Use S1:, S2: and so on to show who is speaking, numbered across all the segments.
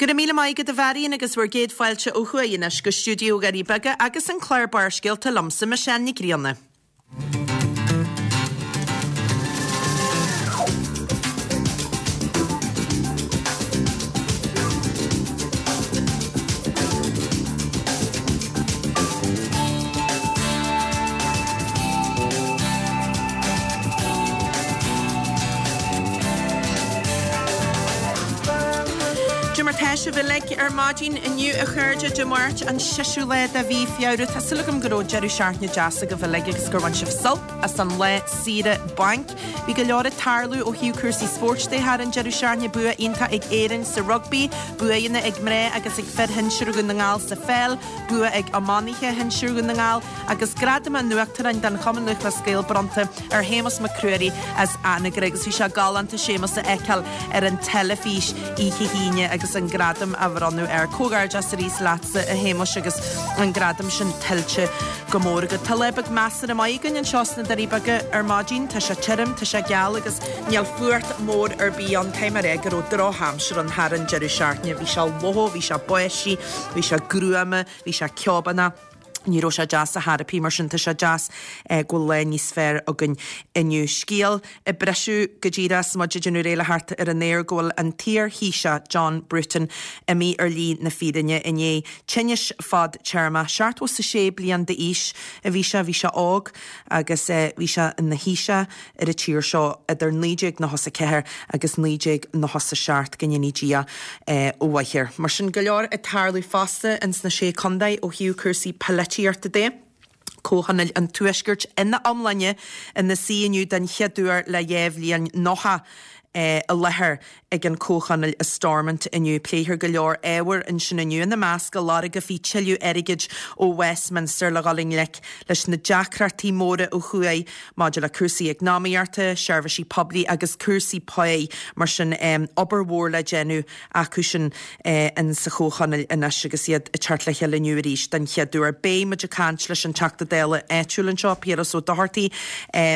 S1: Go raibh míle maith agat a Mharion agus bhur gcéad fáilte ó thuaidh anois go stiúideo Dhoirí Beaga agus an clár Barrscéalta liomsa, Michelle Nic Grianna. Dé mar tá sibh uilig ar maidin inniu a chairde, Dé Máirt an seisiú lá de mhí Feabhra. Tá súil agam go raibh deireadh seachtaine deas agaibh uilig agus gur bhain sibh sult as an lá saoire bainc. Bhí go leor ag tarlú ó thaobh cúrsaí spóirt de thar an deireadh seachtaine, bua iontach ag Éirinn sa rugbaí, buanna ag mná agus ag fir shinsir Dhún na nGall sa pheil, bua ag iománaithe shinsir Dhún na nGall agus gradam an Uachtaráin den Chumann Lúthchleas Gael bronnta ar Shéamus Mac Ruairí as Anagaire agus bhí sé galánta Séamus a fheiceáil ar an teilifís oíche hAoine agus an gradam á bhronnadh air. Comhghairdeas arís leatsa a Shéamuis agus an gradam sin tuillte go mór agat. Tá lá beag measartha maith againn anseo sna Doirí Beaga ar maidin. Tá sé tirim, tá sé geal agus níl fuacht mór ar bith ann. Caithfidh mé a rá go raibh drochaimsir ann thar an deireadh seachtaine. Bhí sé fliuch, bhí sé báistí, bhí sé gruama, bhí sé ceobánach. Ní raibh sé deas ar chor ar bith, mar sin tá sé deas go bhfuil lá níos fearr againn inniu. Scéal ag briseadh go díreach is muid ag déanamh réidh le theacht ar an aer go bhfuil an t-iar-Thaoiseach John Bruton imithe ar shlí na fírinne i ndiaidh tinnis fadtéarmach. 76 bliain d'aois a bhí sé, bhí sé óg agus bhí sé ina Thaoiseach ar an tír seo idir 1994 agus 1997, go ndéanaí Dia a mhaith air. Mar sin, go leor ag tarlú fosta ins na Sé Contae ó thaobh cúrsaí polaitíochta de. Comhthionól an Tuaiscirt ina iomláine ina suí inniu den chéad uair le 2 bhliain, 90 i láthair ag an Comhthionól i Stormont inniu. Pléifear go leor ábhar ansin inniu, ina measc go lorgófaí tuilleadh airgid ó Westminster le dhul i ngleic leis na deacrachtaí móra ó thuaidh maidir le cúrsaí eacnamaíochta, seirbhísí poiblí agus cúrsaí páí. Mar sin, obair mhór le déanamh acu sin in sa Chomhthionól anois agus iad ag teacht le chéile inniu arís den chéad uair. Beidh muid ag caint leis an Teachta Dála áitiúil anseo, Piaras Ó Dochartaigh,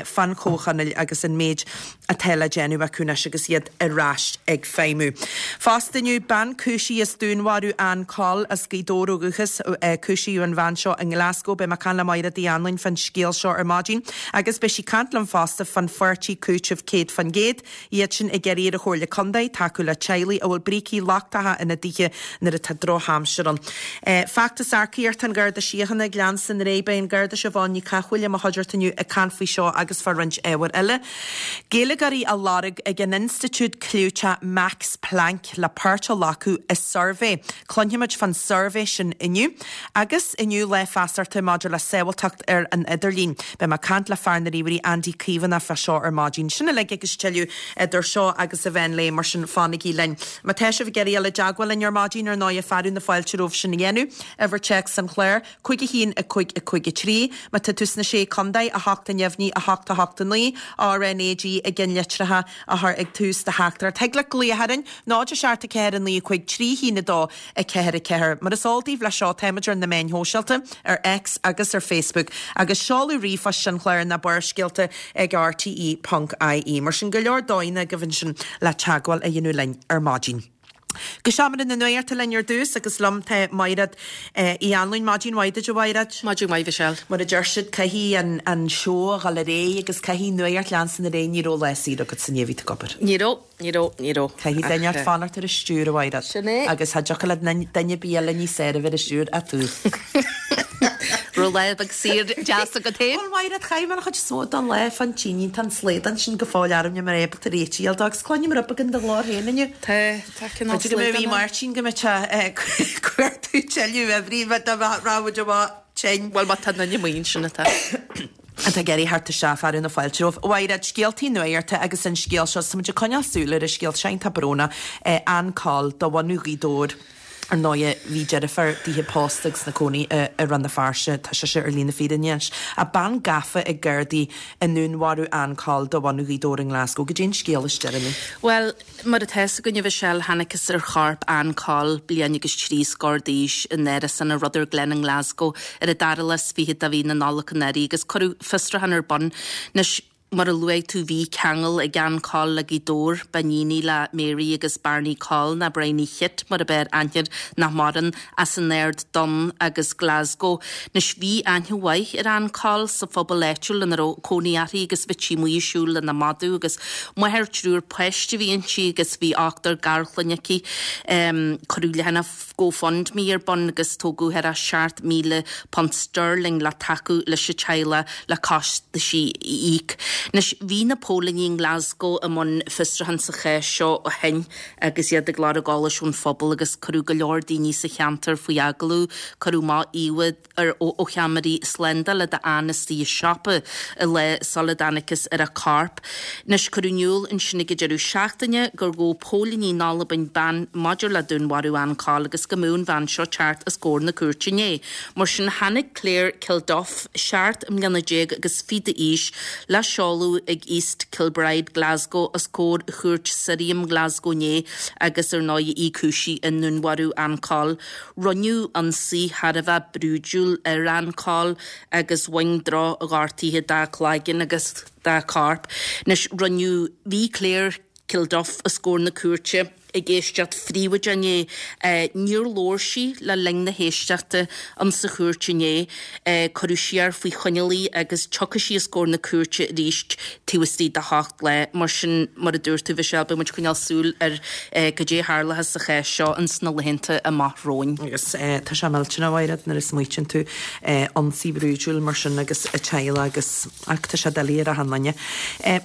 S1: fán Chomhthionól agus an méid atá le déanamh acu anois agus iad ar ais ag feidhmiú. Fosta inniu, bean cúisithe as dúnmharú Ann Coll as Gaoth Dobhair ó dhúchas. Cúisíodh an bhean seo i nGlasgow. Beidh mé ag caint le Maighread Uí Anluain fán scéal seo ar maidin agus beidh sí ag caint liom fosta fán pháirtí cúitimh 100%. Iad sin ag iarraidh ar an Chomhairle Contae tacú le teaghlaigh a bhfuil brící lochtacha ina dtithe nuair atá drochaimsir ann. Feachtas earcaíochta an Gharda Síochána ag leanstan ar aghaidh. Beidh an Garda Siobhán Ní Chathmhaoil i mo chuideachta inniu ag caint faoi seo agus fá roinnt ábhair eile. Gaeilgeoirí á lorg ag an institiúid clúiteach Max Planck le páirt a ghlacadh i suirbhé. Cluinfimid fán suirbhé sin inniu. Agus inniu lá feasachta maidir le sábháilteacht ar an idirlíon. Beidh mé ag caint le fear na ríomhairí Andy Caomhánach fá seo ar maidin. Sin uilig agus tuilleadh idir seo agus an mheán lae, mar sin fanaigí linn. Má tá sibh ag iarraidh dul i dteagmháil linn ar maidin, ar ndóighe, fearadh na fáilte romhaibh sin a dhéanamh. Uimhir téacs an chláir. 5 1 5 5 3 Má tá tú sna Sé Contae, 8 a neamhní, 8 8 9, RNAG i gceannlitreacha a chur ag tús do theachtaireacht. Thig leat glaoch orainn, 0 7 4 9 5 3 1 2 4 4. Mar is eol daoibh leis seo, táimid ar na meáin shóisialta, ar X agus ar Facebook, agus seoladh ríomhphoist an chláir ná barrscéalta ag rte ponc ie. Mar sin, go leor dóigheanna agaibh ansin le teagmháil a dhéanamh linn ar maidin. Go seomra na nuachta linn ar dtús agus liom tá Maighread Uí Anluain. Maidin mhaith duit a Mhaighread.
S2: Maidin mhaith Michelle.
S1: Mar a deir siad, caithfidh an an seó a dhul ar aghaidh agus caithfidh nuacht leanstan ar aghaidh. Ní raibh lá saor agat inné, bhí tú ag obair.
S2: Ní raibh, ní raibh, ní raibh.
S1: Caithfidh duine ort fanacht ar an stiúir a Mhaighread.
S2: Sin é.
S1: Agus cha dtiocfadh le duine ar bith eile níos fearr a bheith ar an stiúir ach tú.
S2: Raibh lá beag saor deas agat féin?
S1: Bhuel Mhaighread, chaith mé an chuid is mó den lá fán tine, tá an slaghdán sin go fóill orm, níl mé ábalta réiteach a fháil dó agus cluinim rud beag in do ghlór féin inniu.
S2: Tá, tá cineál
S1: B'fhéidir go mbeidh
S2: slaghdán ann.
S1: Máirtín go mbeidh sé ag cuartú tuilleadh uimhrí dá raibh muid amach tinn.
S2: Bhuel má tá duine amuigh ansin atá.
S1: Atá ag iarraidh theacht isteach, fearadh na fáilte romhaibh. A Mhaighread, scéaltaí nuachta agus an scéal seo, tá muid ag coinneáil súil ar an scéal seo, iontach brónach, Ann Coll de bhunadh Ghaoth Dobhair. Ar ndóighe, bhí deirfiúr dithe pósta agus ina cónaí i Rann na Feirste. Tá sise ar shlí na fírinne anois. Ach bean gafa ag Gardaí i ndúnmharú Ann Coll de bhunadh Ghaoth Dobhair i nGlasgow. Goidé an scéal is deireanaí.
S2: Bhuel, mar atá fhios againn, a Mhichelle, thángthas ar chorp Ann Coll, bliain agus trí scór d'aois, in árasán i Rutherglen i nGlasgow ar an dara lá is fichead de mhí na Nollag anuraidh agus cuireadh fiosrúchán ar bun. Anois. Mar a luaigh tú bhí ceangal ag Ann Coll le Gaoth Dobhair, b'iníon í le Mary agus Barney Coll, nó Bridie Chit mar ab fhearr aithne air, nach maireann, as an Aird Donn agus Glasgow. Anois bhí aithne mhaith ar Ann Coll sa phobal áitiúil ina raibh cónaí uirthi agus bhíodh sí amuigh ag siúl lena madadh agus máthair triúr páiste a bhí inti agus bhí ochtar garchlainne aici. Cuireadh leathanach GoFundMe ar bun agus tógadh thar £7,000 sterling le tacú leis an teaghlach le costaisí a íoc. Anois, bhí na póilíní i nGlasgow i mbun fiosrúchán sa chás seo ó shin agus iad ag lorg eolais ón phobal agus cuireadh go leor daoine sa cheantar faoi agallamh. Cuireadh amach íomhá ar ó cheamaraí slándála d'Ann istigh i siopa an lá sula dtángthas ar a corp. Anois, cuireadh in iúl ansin ag an deireadh seachtaine gur ghabh póilíní in Albain bean maidir le dúnmharú Ann Coll agus go mbeadh an bhean seo ag teacht os comhair na cúirte inné. Mar sin, tháinig Claire Kilduff, 17 mbliana agus fiche d'aois, le seoladh ag East Kilbride, Glasgow, os comhair Chúirt Sirriam Glasgow inné agus ar ndóigh í cúisithe i ndúnmharú Ann Coll. Rinneadh ionsaí thar a bheith brúidiúil ar Ann Coll agus bhain droch-ghortuithe dá cloigeann agus dá corp. Anois, rinneadh, bhí Claire Kilduff os comhair na cúirte ag éisteacht phríobháideach inné. Níor labhair sí le linn na héisteachta insa chúirt inné. Cuireadh siar faoi choinneáil í agus tiocfaidh sí os comhair na cúirte arís taobh istigh de sheacht lá. Mar sin, mar a dúirt tú, Mhichelle, beidh muid ag coinneáil súil ar goidé a tharlóchas sa chás seo ins na laethanta amach romhainn.
S1: Agus tá sé millteanach, a Mhaighread, nuair a smaoitíonn tú, ionsaí brúidiúil mar sin agus a teaghlach agus, ach tá sé doiligh ar achan duine.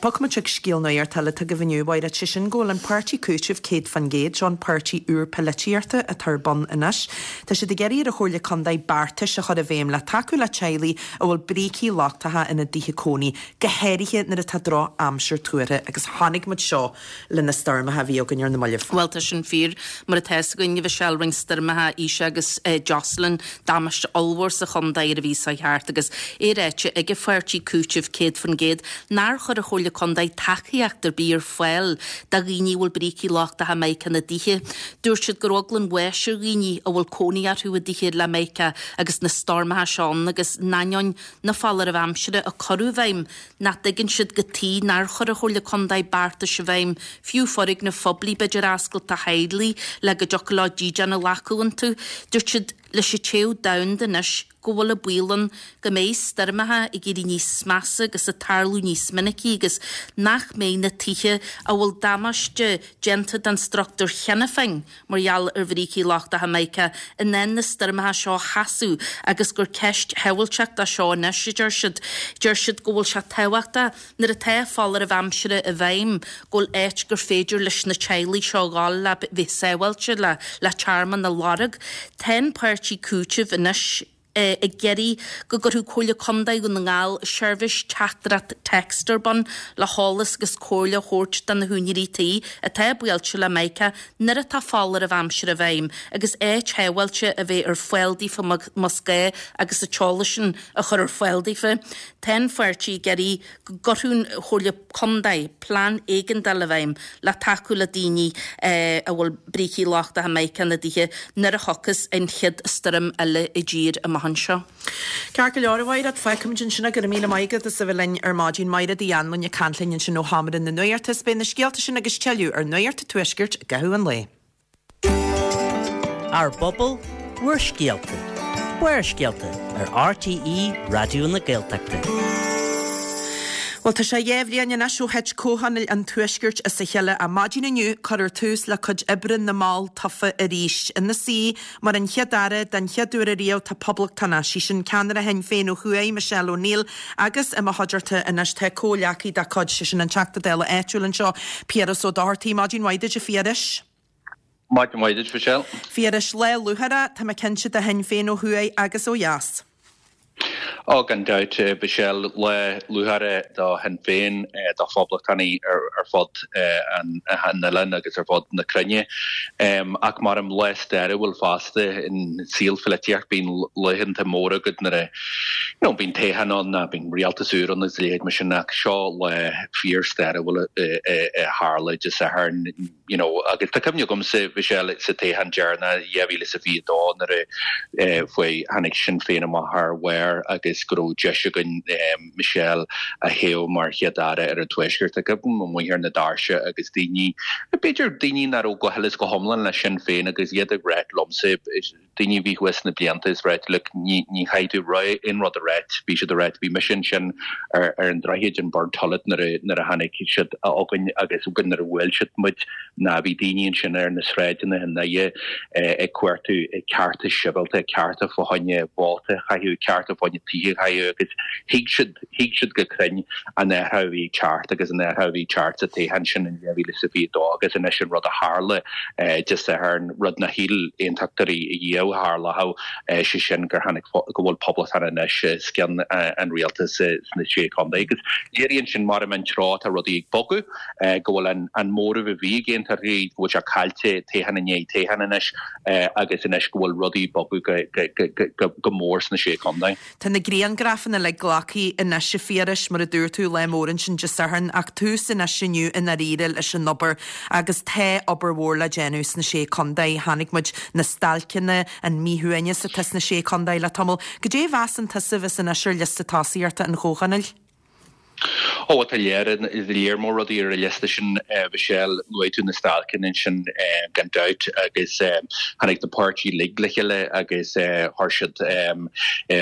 S1: Bogfaidh muid chuig scéal nuachta eile atá agaibh inniu, a Mhaighread, sé sin go bhfuil an páirtí Cúitimh 100%, seo an páirtí úr polaitíochta atá ar bun anois. Tá siad ag iarraidh ar an Chomhairle Contae beartais a chur i bhfeidhm le tacú le teaghlaigh a bhfuil brící lochtacha ina dtithe cónaí, go háirithe nuair atá droch-aimsir tuartha agus chonaic muid seo le na stoirmeacha a bhí againn ar na mallaibh.
S2: Bhuel, tá sin fíor. Mar atá fhios againn, a Mhichelle, rinne stoirmeacha Isha agus Jocelyn damáiste ollmhór sa chontae ar an mhí seo thart agus é ráite ag an pháirtí Cúitimh 100% nár chuir an Chomhairle Contae tacaíocht ar bith ar fáil do dhaoine a bhfuil brící lochtacha mica ina dtithe. Dúirt siad go raibh eagla an bháis ar dhaoine a bhfuil cónaí orthu i dtithe le mica agus na stoirmeacha seo ann agus in ainneoin na foláirimh aimsire a cuireadh i bhfeidhm, nach dtuigeann siad cad tuige nár chuir an Chomhairle Contae beartais i bhfeidhm, fiú foirgnimh phoiblí b'fhéidir a oscailt do theaghlaigh le go dtiocfadh leo dídean a ghlacadh iontu. Dúirt siad leis an téamh domhanda anois go bhfuil an baol ann go mbeidh stoirmeacha ag éirí níos measa agus ag tarlú níos minicí agus nach mbeidh na tithe a bhfuil damáiste déanta don struchtúr cheana féin mar gheall ar bhrící lochtacha mica, in ann na stoirmeacha seo a sheasamh agus gur ceist shábháilteachta seo anois, a deir siad. Deir siad go bhfuil sé tábhachtach, nuair atá foláireamh aimsire i bhfeidhm, go bhfuil áit gur féidir leis na teaghlaigh seo a dhul le bheith sábháilte, le le tearmann a lorg. Tá an páirtí Cúitimh anois. ag iarraidh go gcuirfeadh Comhairle Contae Dhún na nGall seirbhís teachtaireacht text ar bun le heolas agus comhairle a thabhairt do na húinéirí tí atá buailte le mica nuair atá foláireamh aimsire i bhfeidhm agus áit shábháilte a bheith ar fáil daofa más gá agus an t-eolas sin a chur ar fáil daofa. Tá an pháirtí ag iarraidh go gcuirfeadh an Chomhairle Contae plean éigeandála i bhfeidhm le tacú le daoine a bhfuil brící lochtacha mica ina dtithe nuair a thiocfas an chéad stoirm eile i dtír amach anseo.
S1: Ceart go leor, a Mhaighread, fágfaimid ansin é. Go raibh míle maith agat as a bheith linn ar maidin. Maighread Uí Anluain ag caint linn ansin ó Sheomra na Nuachta. Is beidh na scéalta sin agus tuilleadh ar Nuacht an Tuaiscirt i gcaitheamh an lae.
S3: Ár bpobal, bhur scéalta. Barrscéalta ar RTÉ Raidió na Gaeltachta.
S1: Bhuel, tá sé 2 bhliain anois ó thit Comhthionól an Tuaiscirt as a chéile. Ar maidin inniu, cuirfear tús le cuid oibre na mball tofa arís. Ina suí mar an Chéad-Aire den chéad uair ariamh tá poblachtánach, sí sin ceannaire Shinn Féin ó thuaidh, Michelle O'Neill, agus i mo chuideachta anois tá comhghleacaí dá cuid, sé sin an Teachta Dála áitiúil anseo, Piaras Ó Dochartaigh. Maidin mhaith duit, a Phiarais.
S4: Maidin mhaith duit, Michelle.
S1: Phiarais, lá lúcháireach, tá mé cinnte, do Shinn Féin ó thuaidh agus ó dheas.
S4: Ó, gan dabht, Michelle, lá lúcháireach do Shinn Féin, do phoblachtánaigh ar fud an oileáin agus ar fud na cruinne. Ach maram lá stairiúil fosta in saol pholaitíocht, bíonn laethanta móra agat nuair a, you know, bíonn toghchán ann nó bíonn rialtas úr ann agus a leithéid mar sin ach seo lá fíor-stairiúil a tharla Dé Sathairn. you know, agus tá cuimhne agamsa, Michelle, sa toghchán deireanach 2022 nuair a fuair, tháinig Sinn Féin amach thar bharr agus. agus go raibh deis againn Michelle a thoghadh mar Chéad-Aire ar an Tuaisceart. Ceapaim amuigh ar na doirse agus daoine, b'fhéidir daoine nach raibh go huile is go hiomlán le Sinn Féin agus iad ag ráit liomsa, daoine a bhí thuas sna blianta is ráit look ní ní chaithfidh tú aon rud a ráit, bhí siad ag ráit bhí mise ansin ar ar an droichead in Burntollet nuair a nuair a tháinig siad chugainn agus nuair a bhuail siad muid ná bhí daoine ansin ar na sráideanna i nDoire ag cuartú cearta sibhialta, cearta fá choinne vóta a chaitheamh, cearta fá choinne tithe a chaitheamh agus thuig siad, thuig siad go cruinn an athrú a bhí ag teacht agus an athrú a bhí ag teacht sa toghchán sin in 2022 agus anois an rud a tharla Dé Sathairn, rud nár shíl aontachtóirí riamh a tharlódh, sé sin gur tháinig, go bhfuil poblachtánaigh anois os cionn an rialtais sna Sé Chontae agus léiríonn sin mar an treo atá rudaí ag bogadh. go bhfuil an móramh a bhí ag aontachtóirí, go bhfuil sé caillte toghchán i ndiaidh toghcháin anois agus anois go bhfuil rudaí ag bogadh go mór sna Sé Chontae.
S1: Tá na grianghrafanna uilig glactha anois a Phiarais, mar a dúirt tú, lá mór ansin Dé Sathairn, ach tús anois inniu i ndáiríre leis an obair agus tá obair mhór le déanamh sna Sé Chontae. Chonaic muid na stailceanna, an míshuaimhneas atá sna Sé Chontae le tamall. Goidé a mheasann tusa a bheas anois ar liosta tosaíochta an Chomhthionóil?
S4: Ó, tá léar, léar mór rudaí ar an liosta sin, a Mhichelle. Luaigh tú na stailceanna ansin gan dabht agus tháinig na páirtithe uilig le chéile agus chuir siad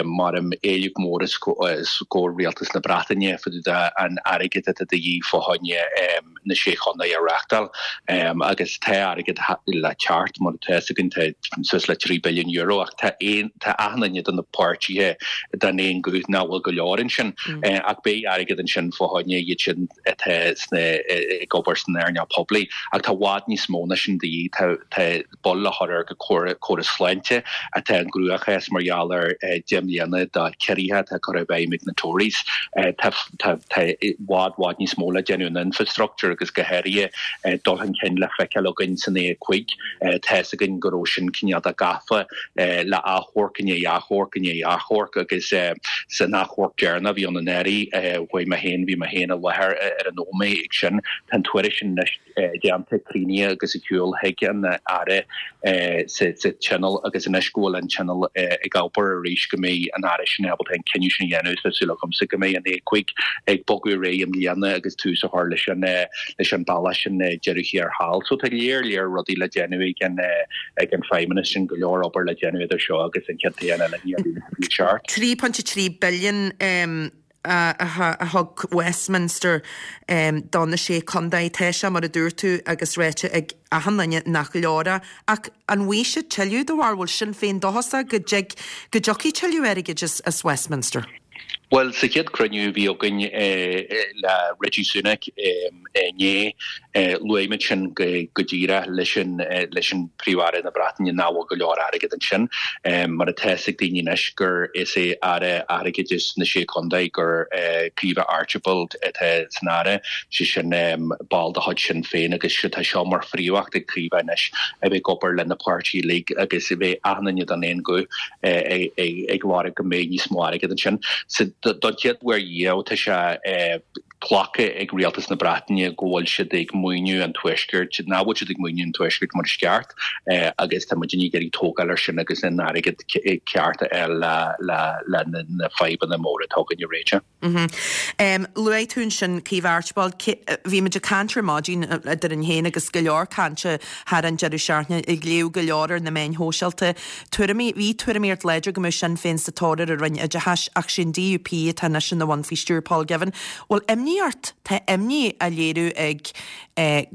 S4: mar éileamh mór os comhair rialtas na Breataine fá dtaobh de an airgead atá de dhíth fá choinne na Sé Chontae a reáchtáil agus tá airgead le teacht, mar atá fhios againn, tá suas le €3 billiún ach tá aon, tá achan duine de na páirtithe den aon ghuth nach bhfuil go leor ansin ach beidh airgead ansin fá choinne iad sin atá sna, ag obair san earnáil poiblí ach tá i bhfad níos mó ná sin de dhíth. Tá, tá. bail le cur ar an gcóras sláinte atá i gcruachás mar gheall ar 10 mbliana de chiorruithe atá curtha i bhfeidhm ag na Tories. Tá i bhfad bhfad níos mó le déanamh in infrastructure agus go háirithe dul chun cinn le feiceáil againn san A5. Tá fhios againn go raibh sin cineál de gafa le achomharc i ndiaidh achomharc i ndiaidh achomharc agus san achomharc deireanach a bhí ann anuraidh, chuaigh mé féin, bhí mé féin i láthair ar an nóiméad ag sin. Tá an tuairisc sin anois. déanta, críochnaithe agus ar shiúl chuig an Aire sa Tionól agus anois go bhfuil an Tionól ag obair arís go mbeidh an Aire sin ábalta an cinneadh sin a dhéanamh. Tá súil agamsa go mbeidh an A5 ag bogadar ar aghaidh i mbliana agus tús a chur leis an leis an bealach sin deireadh thiar thall. So tá léar léar rudaí le déanamh ag an ag an Feidhmeannas sin, go leor obair le déanamh idir seo agus an chéad toghchán eile in 2027.
S1: 3.3 billion a thug Westminster do na Sé Chontae. Tá sé, mar a dúirt tú, agus ráite ag achan duine nach leor é. Ach an bhfaighidh siad tuilleadh do bharúil? Sinn Féin dóchasach go dtig, go dtiocfaidh tuilleadh airgid as Westminster?
S4: Bhuel, sa chéad cruinniú a bhí againn le Rishi Sunak inné, luaigh muid sin go díreach leis an leis an Príomh-Aire na Breataine nach bhfuil go leor airgead ansin. Mar atá fhios ag daoine anois gur is é Aire Airgeadais na Sé Chontae gur Caoimhe Archibald atá san Aire, sé sin ball de chuid Sinn Féin agus tá seo mar phríomhacht ag Caoimhe anois a bheith ag obair le na páirtithe uilig agus a bheith achan duine den aon ghuth ag lorg go mbeidh níos mó airgead ansin. Don chéad uair riamh tá sé glactha ag rialtas na Breataine go bhfuil siad ag maoiniú an Tuaiscirt, nach bhfuil siad ag maoiniú an Tuaiscirt mar is ceart agus tá muidinne ag iarraidh tógáil air sin agus an airgead ceart a fháil le na fadhbanna móra atá againn a réiteach.
S1: Luaigh tú ansin Caoimhe Archibald. Bhí muid ag caint ar maidin eadrainn féin agus go leor cainte thar an deireadh seachtaine, ag léamh go leor ar na meáin shóisialta. Tuairimí, bhí tuairimíocht láidir go mbeadh Sinn Féin sa tóir ar an Roinn Oideachais ach sé an DUP atá anois ina bhun faoi stiúir Paul Givan. Bhfuil imní ort? Tá imní á léiriú ag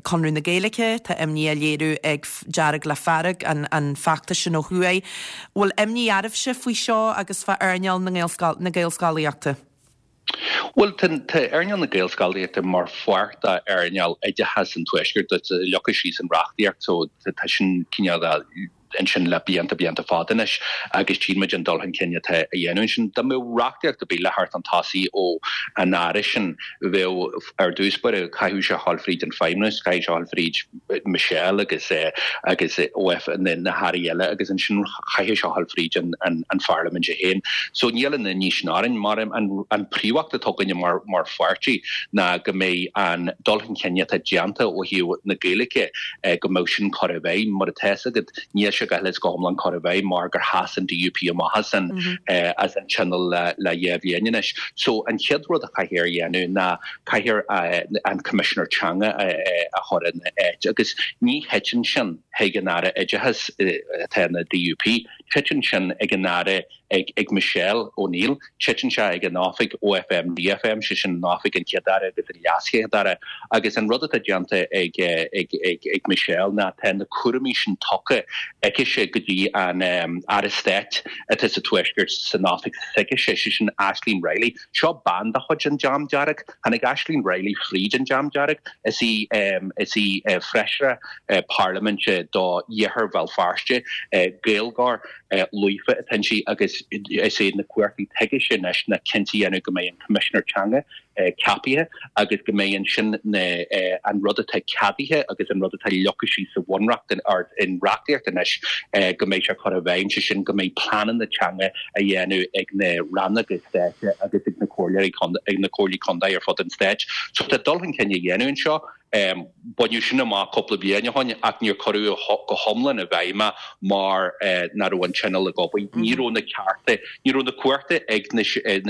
S1: Conradh na Gaeilge, tá imní á léiriú ag Dearg le Fearg, an feachtas sin ó thuaidh. Bhfuil imní oraibhse faoi seo agus fá earnáil na Gaelscolaíochta?
S4: Bhuel, tá earnáil na Gaelscolaíochta mar pháirt d'earnáil oideachais an Tuaiscirt. Tá leagtha síos an reachtaíocht so tá sin cineál ansin le blianta, blianta fada anois agus tchíonn muid an dul chun cinn atá á dhéanamh ansin. Dá mbeadh reachtaíocht ar bith le theacht chun tosaigh ó an Aire sin, bheadh ar dtús báire, chaithfeadh sé a ghabháil fríd an Feidhmeannas, chaithfeadh sé a ghabháil fríd Michelle agus agus OF na hairí eile agus ansin chaithfeadh sé a ghabháil fríd an Pharlaimint é féin. So níl an imní sin orainn. Mar an príomhacht atá againne mar mar pháirtí ná go mbeidh an dul chun cinn atá déanta ó thaobh na Gaeilge go mbeadh sin curtha i bhfeidhm. Mar atá fhios agat, níl sé. sé go huile is go hiomlán curtha i bhfeidhm mar gur sheas an DUP amach as an as an Tionól le le dhá bhliain anois. So an chéad rud a chaithfear a dhéanamh ná caithfear an Coimisinéir Teanga a chur ina áit agus ní thiteann sin chuig an Aire Oideachais atá ina DUP, titeann sin ag an Aire ag ag Michelle O'Neill. Titeann sé ag an oifig OFM DFM, sé sin an oifig an Chéad-Aire agus an LeasChéad-Aire. Agus an rud atá déanta ag ag ag ag Michelle ná tá na cúraimí sin tugtha aicise go dtí an Aire Stáit atá sa Tuaisceart san oifig s'aicise, sé sin Aisling Reilly. Seo bean de chuid an Dream Dearg. Tháinig Aisling Reilly fríd an Dream Dearg. Is í is í feisire parlaiminte do Iarthar Bhéal Feirste, Gaeilgeoir. líofa atá inti agus is é na cumhachtaí atá aicise anois ná cinnte a dhéanamh go mbeidh an Coimisinéir Teanga ceapaithe agus go mbeidh ansin na an rud atá ceadaithe agus an rud atá leagtha síos sa bhunreacht or in reachtaíocht anois go mbeidh sé curtha i bhfeidhm, sé sin go mbeidh pleananna teanga á dhéanamh ag na rannóga stáit agus ag na comhairleoirí ag na comhairlí contae ar fud an stáit. So tá dul chun cinn á dhéanamh anseo. Baineadh sin amach cúpla bliain ó shin ach níor cuireadh go hiomlán i bhfeidhm é mar nach raibh an Tionól ag obair. Ní raibh na cearta, ní raibh na cumhachta ag na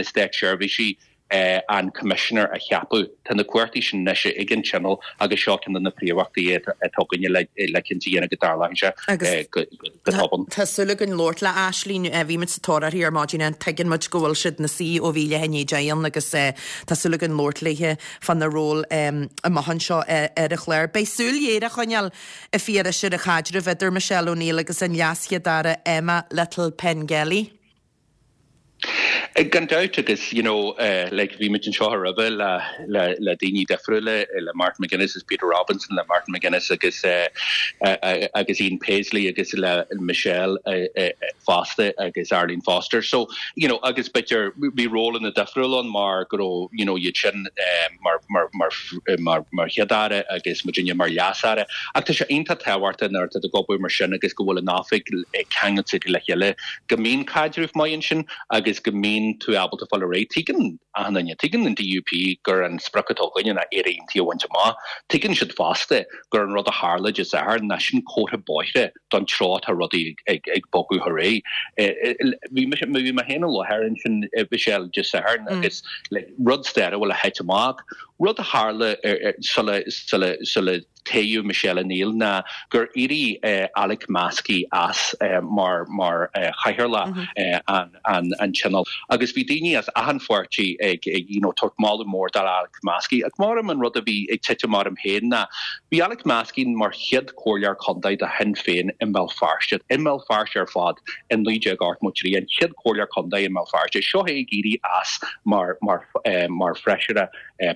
S4: státseirbhísigh an Coimisinéir a cheapadh. Tá na cumhachtaí sin anois ag an Tionól agus seo ceann de na príomhachtaí atá againne le cinnte a dhéanamh go dtarlóidh sé go tobann.
S1: Tá súil againn labhairt le Aisling. Bhí muid sa tóir uirthi ar maidin. Tuigeann muid go bhfuil siad ina suí ó bhí leath i ndiaidh 10 ann agus tá súil againn labhairt léi. fána ról amach anseo ar an chlár. Beidh súil ghéar á choinneáil, a Phiarais, ar an chaidreamh idir Michelle O'Neill agus an LeasChéad-Aire Emma Little-Pengelly.
S4: Gan dabht agus you know like bhí muid anseo roimhe le le le daoine difriúla le Martin McGuinness agus Peter Robinson le Martin McGuinness agus agus Ian Paisley agus le Michelle fosta agus Arlene Foster. So you know agus b'fhéidir bhí rólanna difriúla ann mar go raibh you know iad sin mar mar mar mar mar Chéad-Aire agus muidinne mar Leas-Aire. Ach tá sé iontach tábhachtach nuair atá tú ag obair mar sin agus go bhfuil an oifig ceangailte le chéile go mbíonn caidreamh maith ansin agus go mbíonn tú ábalta fáil ar aghaidh. Tuigeann achan duine, tuigeann an DUP gur an sprioc atá againne ná Éire Aontaithe a bhaint amach. Tuigeann siad fosta gur an rud a tharla Dé Sathairn ná sin comhartha bóithre don treo atá rudaí ag bogadh ar aghaidh. Bhí mise, bhí mé féin i láthair ansin, Michelle, Dé Sathairn agus like rud stairiúil a thit amach. Rud a tharla sula, sula, sula toghadh Michelle O'Neill ná gur éirigh Alex Maskey as mar, mar chathaoirleach an, an, an Tionóil. Agus bhí daoine as achan pháirtí ag, you know, tabhairt moladh mór do Alex Maskey. Ach maram an rud a bhí ag titim orm féin ná bhí Alex Maskey mar chéad chomhairleoir contae do Shinn Féin i mBéal Feirste, i mBéal Feirste ar fad i 1983, an chéad chomhairleoir contae i mBéal Feirste. Seo é ag éirí as mar, mar, mar feisire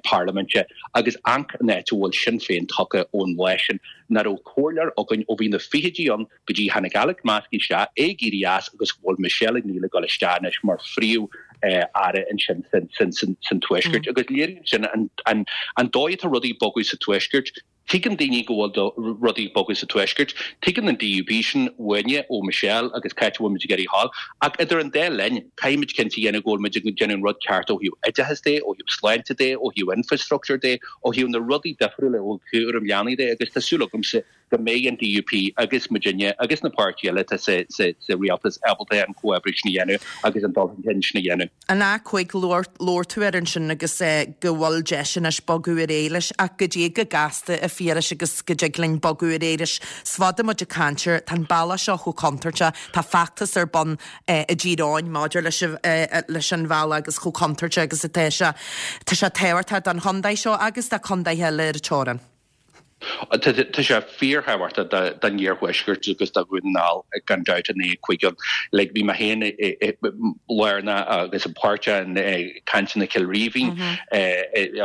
S4: parlaiminte agus amharc an áit a bhfuil Sinn Féin tagtha ón lá sin. Nach raibh comhairleoir againn ó bhí na fichidí ann go dtí tháinig Alex Maskey isteach, é ag éirí as agus go bhfuil Michelle O'Neill ag dul isteach anois mar phríomh aire ansin san Tuaisceart. Agus léiríonn sin an dóigh atá rudaí ag bogadh sa Tuaisceart. Tuigeann daoine go bhfuil rudaí ag bogadh sa Tuaisceart. Tuigeann an DUP sin uainne, ó Michelle agus cá háit a bhfuil muid ag iarraidh a ghabháil. Ach idir an dá linn, caithfidh muid cinnte a dhéanamh go bhfuil muid ag déanamh an rud ceart ó thaobh oideachais de, ó thaobh sláinte de, ó thaobh infrastructure de, ó thaobh na rudaí difriúla, ó thaobh cúram leanaí de agus tá súil agamsa go mbeidh an DUP agus muidinne agus na páirtithe eile atá sa rialtas ábalta an comhoibriú sin a dhéanamh agus an dul chun cinn sin a dhéanamh.
S1: An A5, labhair tú air ansin agus go bhfuil deis anois bogadh ar aghaidh leis ach goidé chomh gasta a Phiarais agus go dtig linn bogadh ar aghaidh leis. Is fada muid ag caint air, tá an bealach seo chomh contúirteach, tá feachtas ar bun i dTír Eoghain maidir leis leis an bhealach agus chomh contúirteach agus atá sé. Tá sé tábhachtach don chontae seo agus do chontaetha eile ar an teorainn.
S4: Tá sé fíorthábhachtach don iarthuaisceart agus do Dhún na nGall gan dabht an A5 ann. Like bhí mé féin lárnach agus páirteach i cainteanna Chill Rímhinn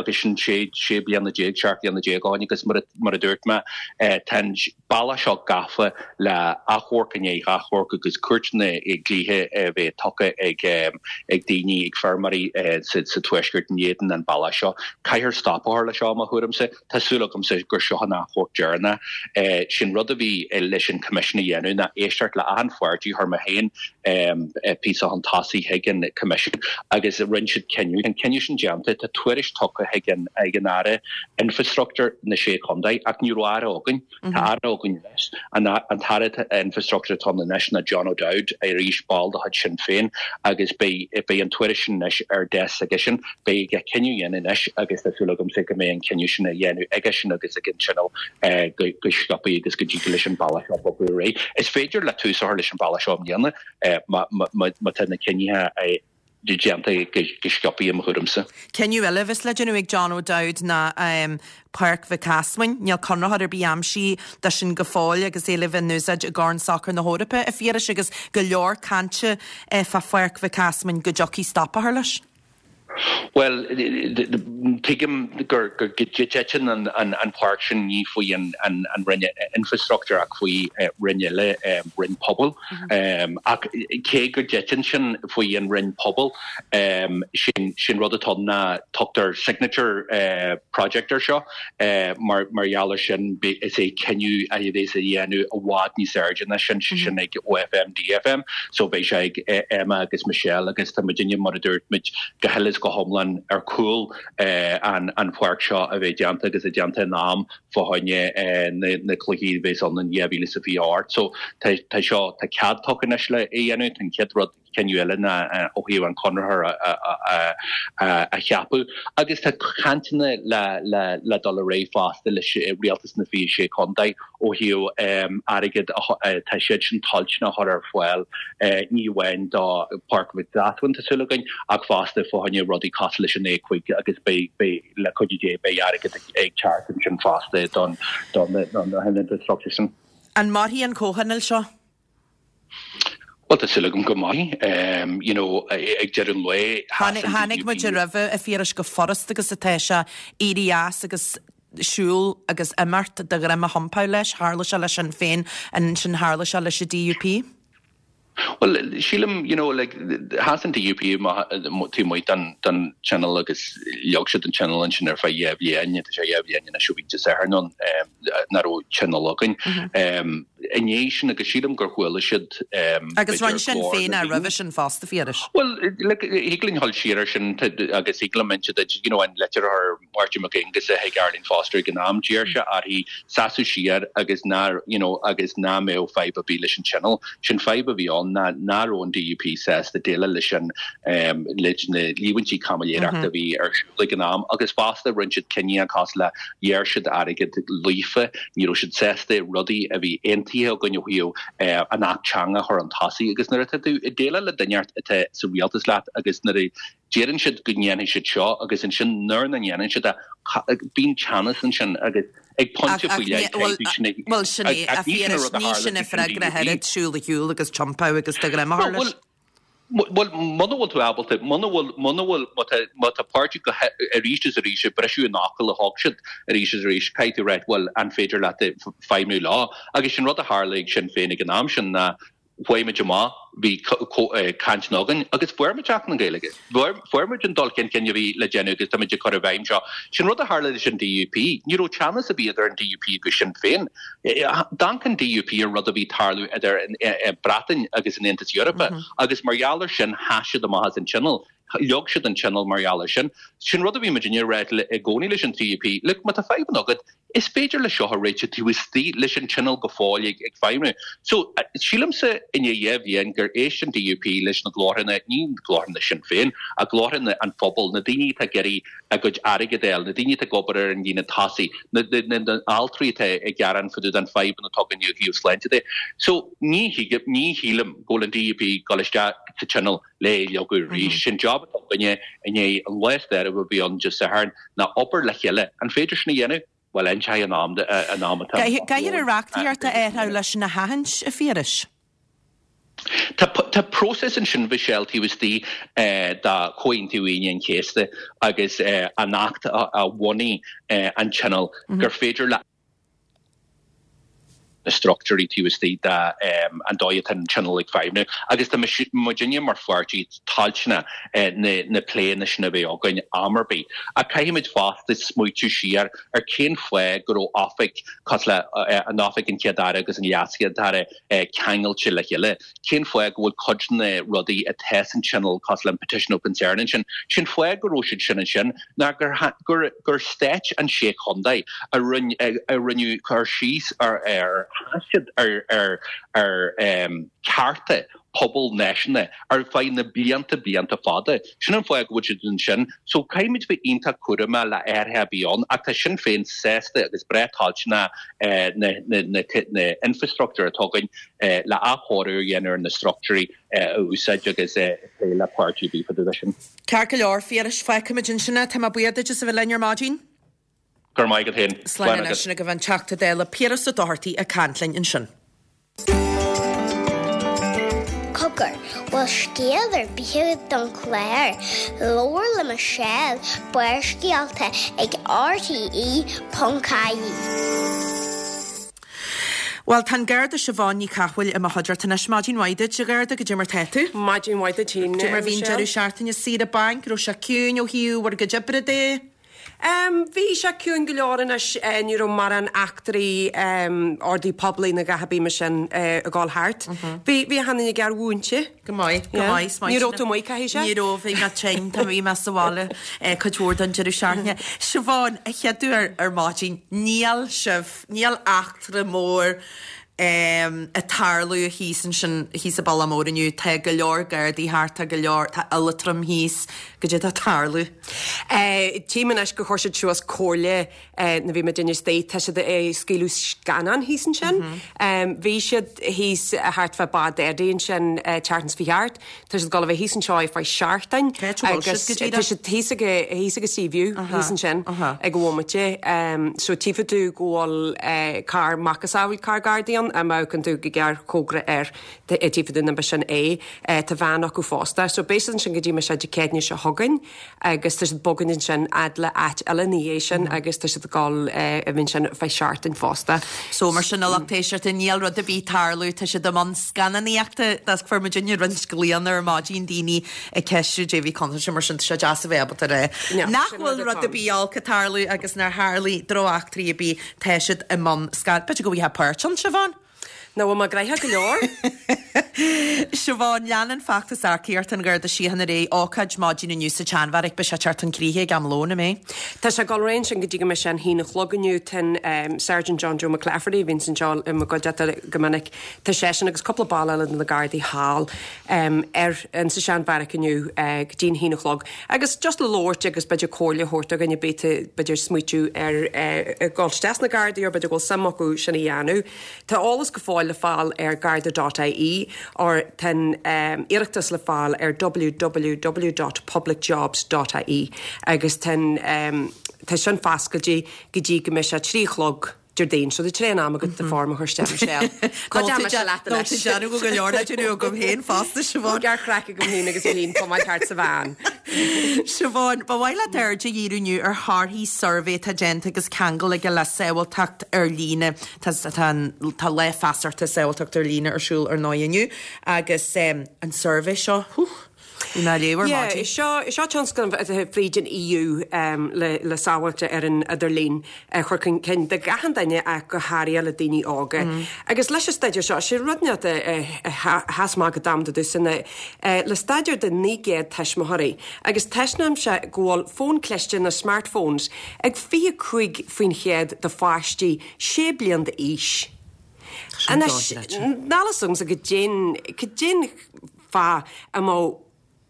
S4: agus sin sé sé bliana déag, 17 bliana ó shin agus mar a dúirt mé tá an bealach seo gafa le achomharc i ndiaidh achomharc agus cúirteanna dlíthe a bheith tugtha ag ag daoine, ag feirmeoirí sa tuaisceart in éadan an bealach seo. Caithfear stop a chur leis seo, mo thuairimse. Tá súil agamsa gur seo an. an achomharc deireanach. Sé'n rud a bhí leis an Coimisiún a dhéanamh ná éisteacht le achan pháirtí, chuir mé féin píosa chun tosaigh chuig an Coimisiún agus rinne siad cinneadh. Tá an cinneadh sin déanta, tá tuairisc tugtha chuig an Aire Infreastruchtúir na Sé Chontae ach ní raibh Aire againn. Tá Aire againn anois. An tAire Infreastruchtúir atá ann anois ná John O'Dowd, arís ball de chuid Sinn Féin, agus beidh an tuairisc sin anois ar deasc s'aigesean. Beidh aige cinneadh a dhéanamh anois agus tá súil agamsa go mbeidh an cinneadh sin á dhéanamh aigesean agus ag an Tionól go sciobtha agus go dtig leis an bealach seo bogadh ar aghaidh. Is féidir le tús a chur leis an bealach seo i mbliana má tá na cinnithe déanta go sciobtha i mo thuairimse.
S1: Cinneadh eile a bheas le déanamh ag John O'Dowd ná Páirc Mhic Easmainn. Níl conraitheoir ar bith aimsithe dó sin go fóill agus é le bheith in úsáid i gCorn Sacair na hEorpa, a Phiarais, agus go leor cainte fá Pháirc Mhic Easmainn go dtiocfaidh stop a chur leis.
S4: Bhuel, tuigim go dtiteann an pháirc sin ní faoi an Roinn Infreastruchtúir ach faoi Roinn eile, Roinn Pobail. Ach cé go dtiteann sin faoi an Roinn Pobail, sé'n rud atá ann ná tugtar signature project air seo. Mar gheall ar sin, is é cinneadh a bheas á dhéanamh i bhfad níos airde ná sin, sé sin ag OFM, DFM, so beidh sé ag Emma agus Michelle agus tá muidinne, mar a dúirt muid, go huile is go hiomlán ar chúl an pháirc seo a bheith déanta agus é déanta in am fá choinne na cluichí a bheas ann in 2028. So tá seo, tá cead tugtha anois le é a dhéanamh, tá an chéad rud, cinneadh eile ná ó thaobh an conraitheoir a cheapadh agus tá cainteanna le dul ar aghaidh fosta leis Rialtas na 26 Contae ó thaobh airgead atá siad sin toilteanach a chur ar fáil ní amháin do Pháirc Mhic Easmainn tá súil againn ach fosta fá choinne rudaí cosúil leis an A5 agus beidh le cuidiú Dé beidh airgead ag teacht ansin fosta don na infrastructure sin.
S1: An mairfidh an comhthionól seo?
S4: Bhuel, tá súil agam go mairfidh. You know, ag deireadh an lae,
S1: sheas an Chonaic muid roimhe, a Phiarais, chomh furasta agus atá sé éirí as agus siúl agus imeacht de dhroim a thiompáil leis. Tharla sé le Sinn Féin, ansin tharla sé leis an DUP.
S4: Bhuel, sílim, you know, like, sheas an DUP taobh amuigh den Tionól agus leag siad an Tionól ansin ar feadh dhá bhliain, tá sé dhá bhliain anois ó bhí Dé Sathairn ann, nach raibh Tionól againn. I ndiaidh sin, agus sílim gur chuala siad,
S1: Agus rinne Sinn Féin é roimhe sin fosta, a Phiarais.
S4: Bhuel, look, thig linn dhul siar ar sin agus thig liom inse duit, you know, an litir a chuir Máirtín Mac Aonghusa chuig Arlene Foster ag an am, d'iarr sé uirthi seasamh siar agus ná, you know, agus ná mbeadh fadhb ar bith leis an Tionól. Sé'n fadhb a bhí ann ná ná raibh an DUP sásta déileáil leis an, leis na líomhaintí caimiléireachta a bhí ar siúl ag an am agus fosta rinne siad cinneadh cosúil le ghearr siad airgead Líofa, ní raibh siad sásta rudaí a bhí aontaithe againn ó thaobh an Acht Teanga a chur chun tosaigh agus nuair atá tú ag déileáil le duine atá sa rialtas leat agus nuair a deireann siad go ndéanfaidh siad seo agus ansin nuair nach ndéanann siad é, bíonn teannas ansin agus ag pointe faoi leith caithfidh tú
S1: sin a Bhuel sin é, a Phiarais, ní sin an freagra ach oiread, siúl ar shiúl agus tiompáil agus do dhroim a chur leis.
S4: Bhuel, muna bhfuil tú ábalta, muna bhfuil, muna bhfuil, má tá, má tá páirtí go arís is arís ag briseadh an fhocail a thug siad arís is arís, caithfidh tú a ráit, bhuel, an féidir leat feidhmiú leo? Agus sin rud a tharla ag Sinn Féin ag an am sin ná chuaigh muid amach, bhí cainteanna againn agus fuair muid Acht na Gaeilge. Fuair muid an dul chun cinn a bhí le déanamh agus tá muid ag cur i bhfeidhm seo. Sin rud a tharla leis an DUP. Ní raibh teannas ar bith idir an DUP agus Sinn Féin. D'amharc an DUP ar rud a bhí ag tarlú idir an Bhreatain agus an Aontas Eorpach agus mar gheall ar sin sheas siad amach as an Tionól. Leag siad an Tionól mar gheall ar sin. Sin rud a bhí muidinne ag rá i gcónaí leis an DUP, look, má tá fadhbanna agat, is féidir le seo a réiteach taobh istigh leis an Tionól go fóill ag feidhmiú. So, sílimse i ndiaidh dhá bhliain gur éist an DUP leis na glórtha, ní glórtha Sinn Féin, ach glórtha an phobail, na daoine atá ag iarraidh a gcuid airgid a fháil, na daoine atá ag obair ar an líne tosaigh, na altraí atá ag gearán fá dtaobh den fadhbanna atá againn ó thaobh sláinte de. So, ní ní shílim go bhfuil an DUP ag dul isteach sa Tionól le é a leagadh arís. Sé'n job atá againne i ndiaidh an lá stairiúil a bhí ann Dé Sathairn ná obair le chéile. An féidir sin a dhéanamh? Bhuel, inseoidh an am an am
S1: atá. Caithfear an reachtaíocht a athrú leis sin a sheachaint, a Phiarais.
S4: Tá tá próiseas ansin, a Mhichelle, taobh istigh de Chomhaontú Aoine an Chéasta agus an Acht a bhunaigh an Tionól gur féidir le. na struchtúirí taobh istigh de an dóigh atá an Tionól ag feidhmiú agus tá muidinne mar pháirtí toilteanach na pléanna sin a bheith againn am ar bith. Ach caithfimid fosta smaoitiú siar ar cén fáth go raibh oifig cosúil le an Oifig an Chéad-Aire agus an LeasChéad-Aire ceangailte le chéile. Cén fáth go bhfuil cuid de na rudaí atá san Tionól cosúil le an Petition of Concern ansin, sin fáth go raibh siad sin ansin ná gur gur gur stáit an sé chontae a rinne a rinneadh cur síos ar ar thaifead ar ar ar cearta pobal náisiúnta ar feadh na blianta blianta fada. Sin an fáth go bhfuil siad ansin. So caithfimid bheith iontach cúramach le athruithe a bheith ann ach tá Sinn Féin sásta agus breá toilteanach na na na infrastruchtúir atá againn le athchóiriú a dhéanamh ar na struchtúirí a úsáid agus plé le páirtí ar bith fá dtaobh de sin.
S1: Ceart go leor, Phiarais, fágfaimid ansin é. Tá mé buíoch duit as a bheith linn ar maidin.
S4: Go raibh maith agat féin.
S1: Slán Slán anois agat. Agaibh an Teachta Dála Piaras Ó Dochartaigh ag caint linn ansin.
S5: Cogar, bhfuil scéal ar bith agat don chlár? Labhair le Michelle, Barrscéalta ag RTE.ie.
S1: Bhuel, tá an Garda Siobhán Ní Chathmhaoil i mo chuideachta anois. Maidin mhaith duit, a Gharda, goidé mar tá tú?
S6: Maidin mhaith duit féin,
S1: Goidé mar bhí an deireadh seachtaine saoire bainc, raibh sé ciúin ó thaobh bhur gcuid oibre de?
S6: Bhí sé ciúin go leor anois, ní raibh mórán eachtraí ordaí poiblí nó a dhath ar bith mar sin ag dul thart. Bhí, bhí achan duine gearr-mhúinte.
S1: Go maith, go maith.
S6: Ní raibh tú amuigh, caithfidh sé?
S1: Ní raibh, bhí mé tinn, tá, bhí mé sa bhaile cuid mhór den deireadh seachtaine. Siobhán, a chéaduair ar maidin, níl sibh, níl eachtra mór ag tarlú thíos ansin, thíos i Bealach Mór inniu. Tá go leor Gardaí thart, tá go leor, tá Iliotram thíos. Goidé atá ag tarlú?
S6: Tchím anois gur chuir siad suas comhairle nuair bhí muid istigh, tá siad ag scaoileadh scannán thíos ansin. Bhí siad thíos thart fá Bád Eddie ansin tseachtain seo chuaigh thart. Tá siad ag dul a bheith thíos anseo ar feadh seachtain
S1: Cá háit a bhfuil
S6: agus
S1: siad go díreach?
S6: tá siad thíos ag thíos ag Seaview thíos ansin ag an bhomaite. So tchífidh tú go bhfuil carr macasamhail carr Gardaí ann, má amharcann tú go gearr chóngarach air tchífidh tú an b'shin é. Tá veain acu fosta. So beidh siad ansin go dtí mbeidh sé Dé Céadaoine seo chugainn. agus tá siad ag bogaint ansin fhad le áit eile ina dhiaidh sin agus tá siad ag dul a bheith ansin ar feadh seachtain fosta.
S1: So mar sin a lucht éisteachta níl rud ar bith ag tarlú, tá siad i mbun scannánaíochta, that's fuair muidinne roinnt glaonna ar maidin daoine ag ceistiú goidé bhí contúirteach mar sin tá sé deas a bheith ábalta a rá nach bhfuil rud ar bith olc ag tarlú agus nár tharlaigh drocheachtraí ar bith, tá siad i mbun scan, b'fhéidir go bhfaighfeá páirt ann, Siobhán?
S6: Nó bhfuil mé gnoitheach go leor?
S1: Siobhán, Leanann feachtas earcaíochta an Gharda Síochána ar aghaidh, ócáid maidin inniu sa tSeanbheairic, beidh sé ag teacht chun críche ag am lóin, an mbeidh?
S6: Tá sé ag dul ar aghaidh ansin go dtí go mbeidh sé an haon a chlog inniu. Tá an Sergeant John Joe McClafferty, a bhíonns anseo i mo gcuideachta go minic, tá seisean agus cúpla ball eile de na Gardaí thall ar in sa Seanbheairic inniu go dtí an haon a chlog. Agus just le labhairt agus b'fhéidir comhairle a thabhairt do dhuine ar bith atá b'fhéidir ag smaoitiú ar dhul isteach sna Gardaí or b'fhéidir go bhfuil suim acu sin a dhéanamh. Tá eolas go fóill le fáil ar garda dot ie or tá an iarratas le fáil ar www dot publicjobs dot ie agus tá an tá sin foscailte go dtí go mbeidh sé 3 a chlog Déardaoin. So tá tréan am agat do form a chur isteach Michelle. Ná déan mise leat
S1: anois. Nó tá déanamh go leor le déanamh agam féin fosta, Siobhán.
S6: Gearr-chraic agam féin agus féin pumáil thart sa veain.
S1: Siobhán, ba mhaith leat aird a dhíriú inniu ar thorthaí suirbhé atá déanta agus ceangal aige le sábháilteacht ar líne. Tá tá an tá lá feasachta sábháilteacht ar líne ar siúl ar ndóigh inniu agus an suirbhé seo, hú! Bhí mé á léamh ar
S6: Yeah,
S1: maidin.
S6: seo, seo tionscnamh atá fríd an EU le, le sábháilte ar an idirlíon a chur chun cinn do achan duine ach go háirithe le daoine óga. Agus leis an staidéar seo, sé rud inteacht a, a, a sheas amach go domanda domhsa ná le staidéar de 900 tuismitheoirí agus taispeánann sé go bhfuil fón cliste nó smartphones ag 25% de pháistí 6 bliain d'aois. Anois, níl fhios agamsa goidé'n, goidé'n fáth a mbeadh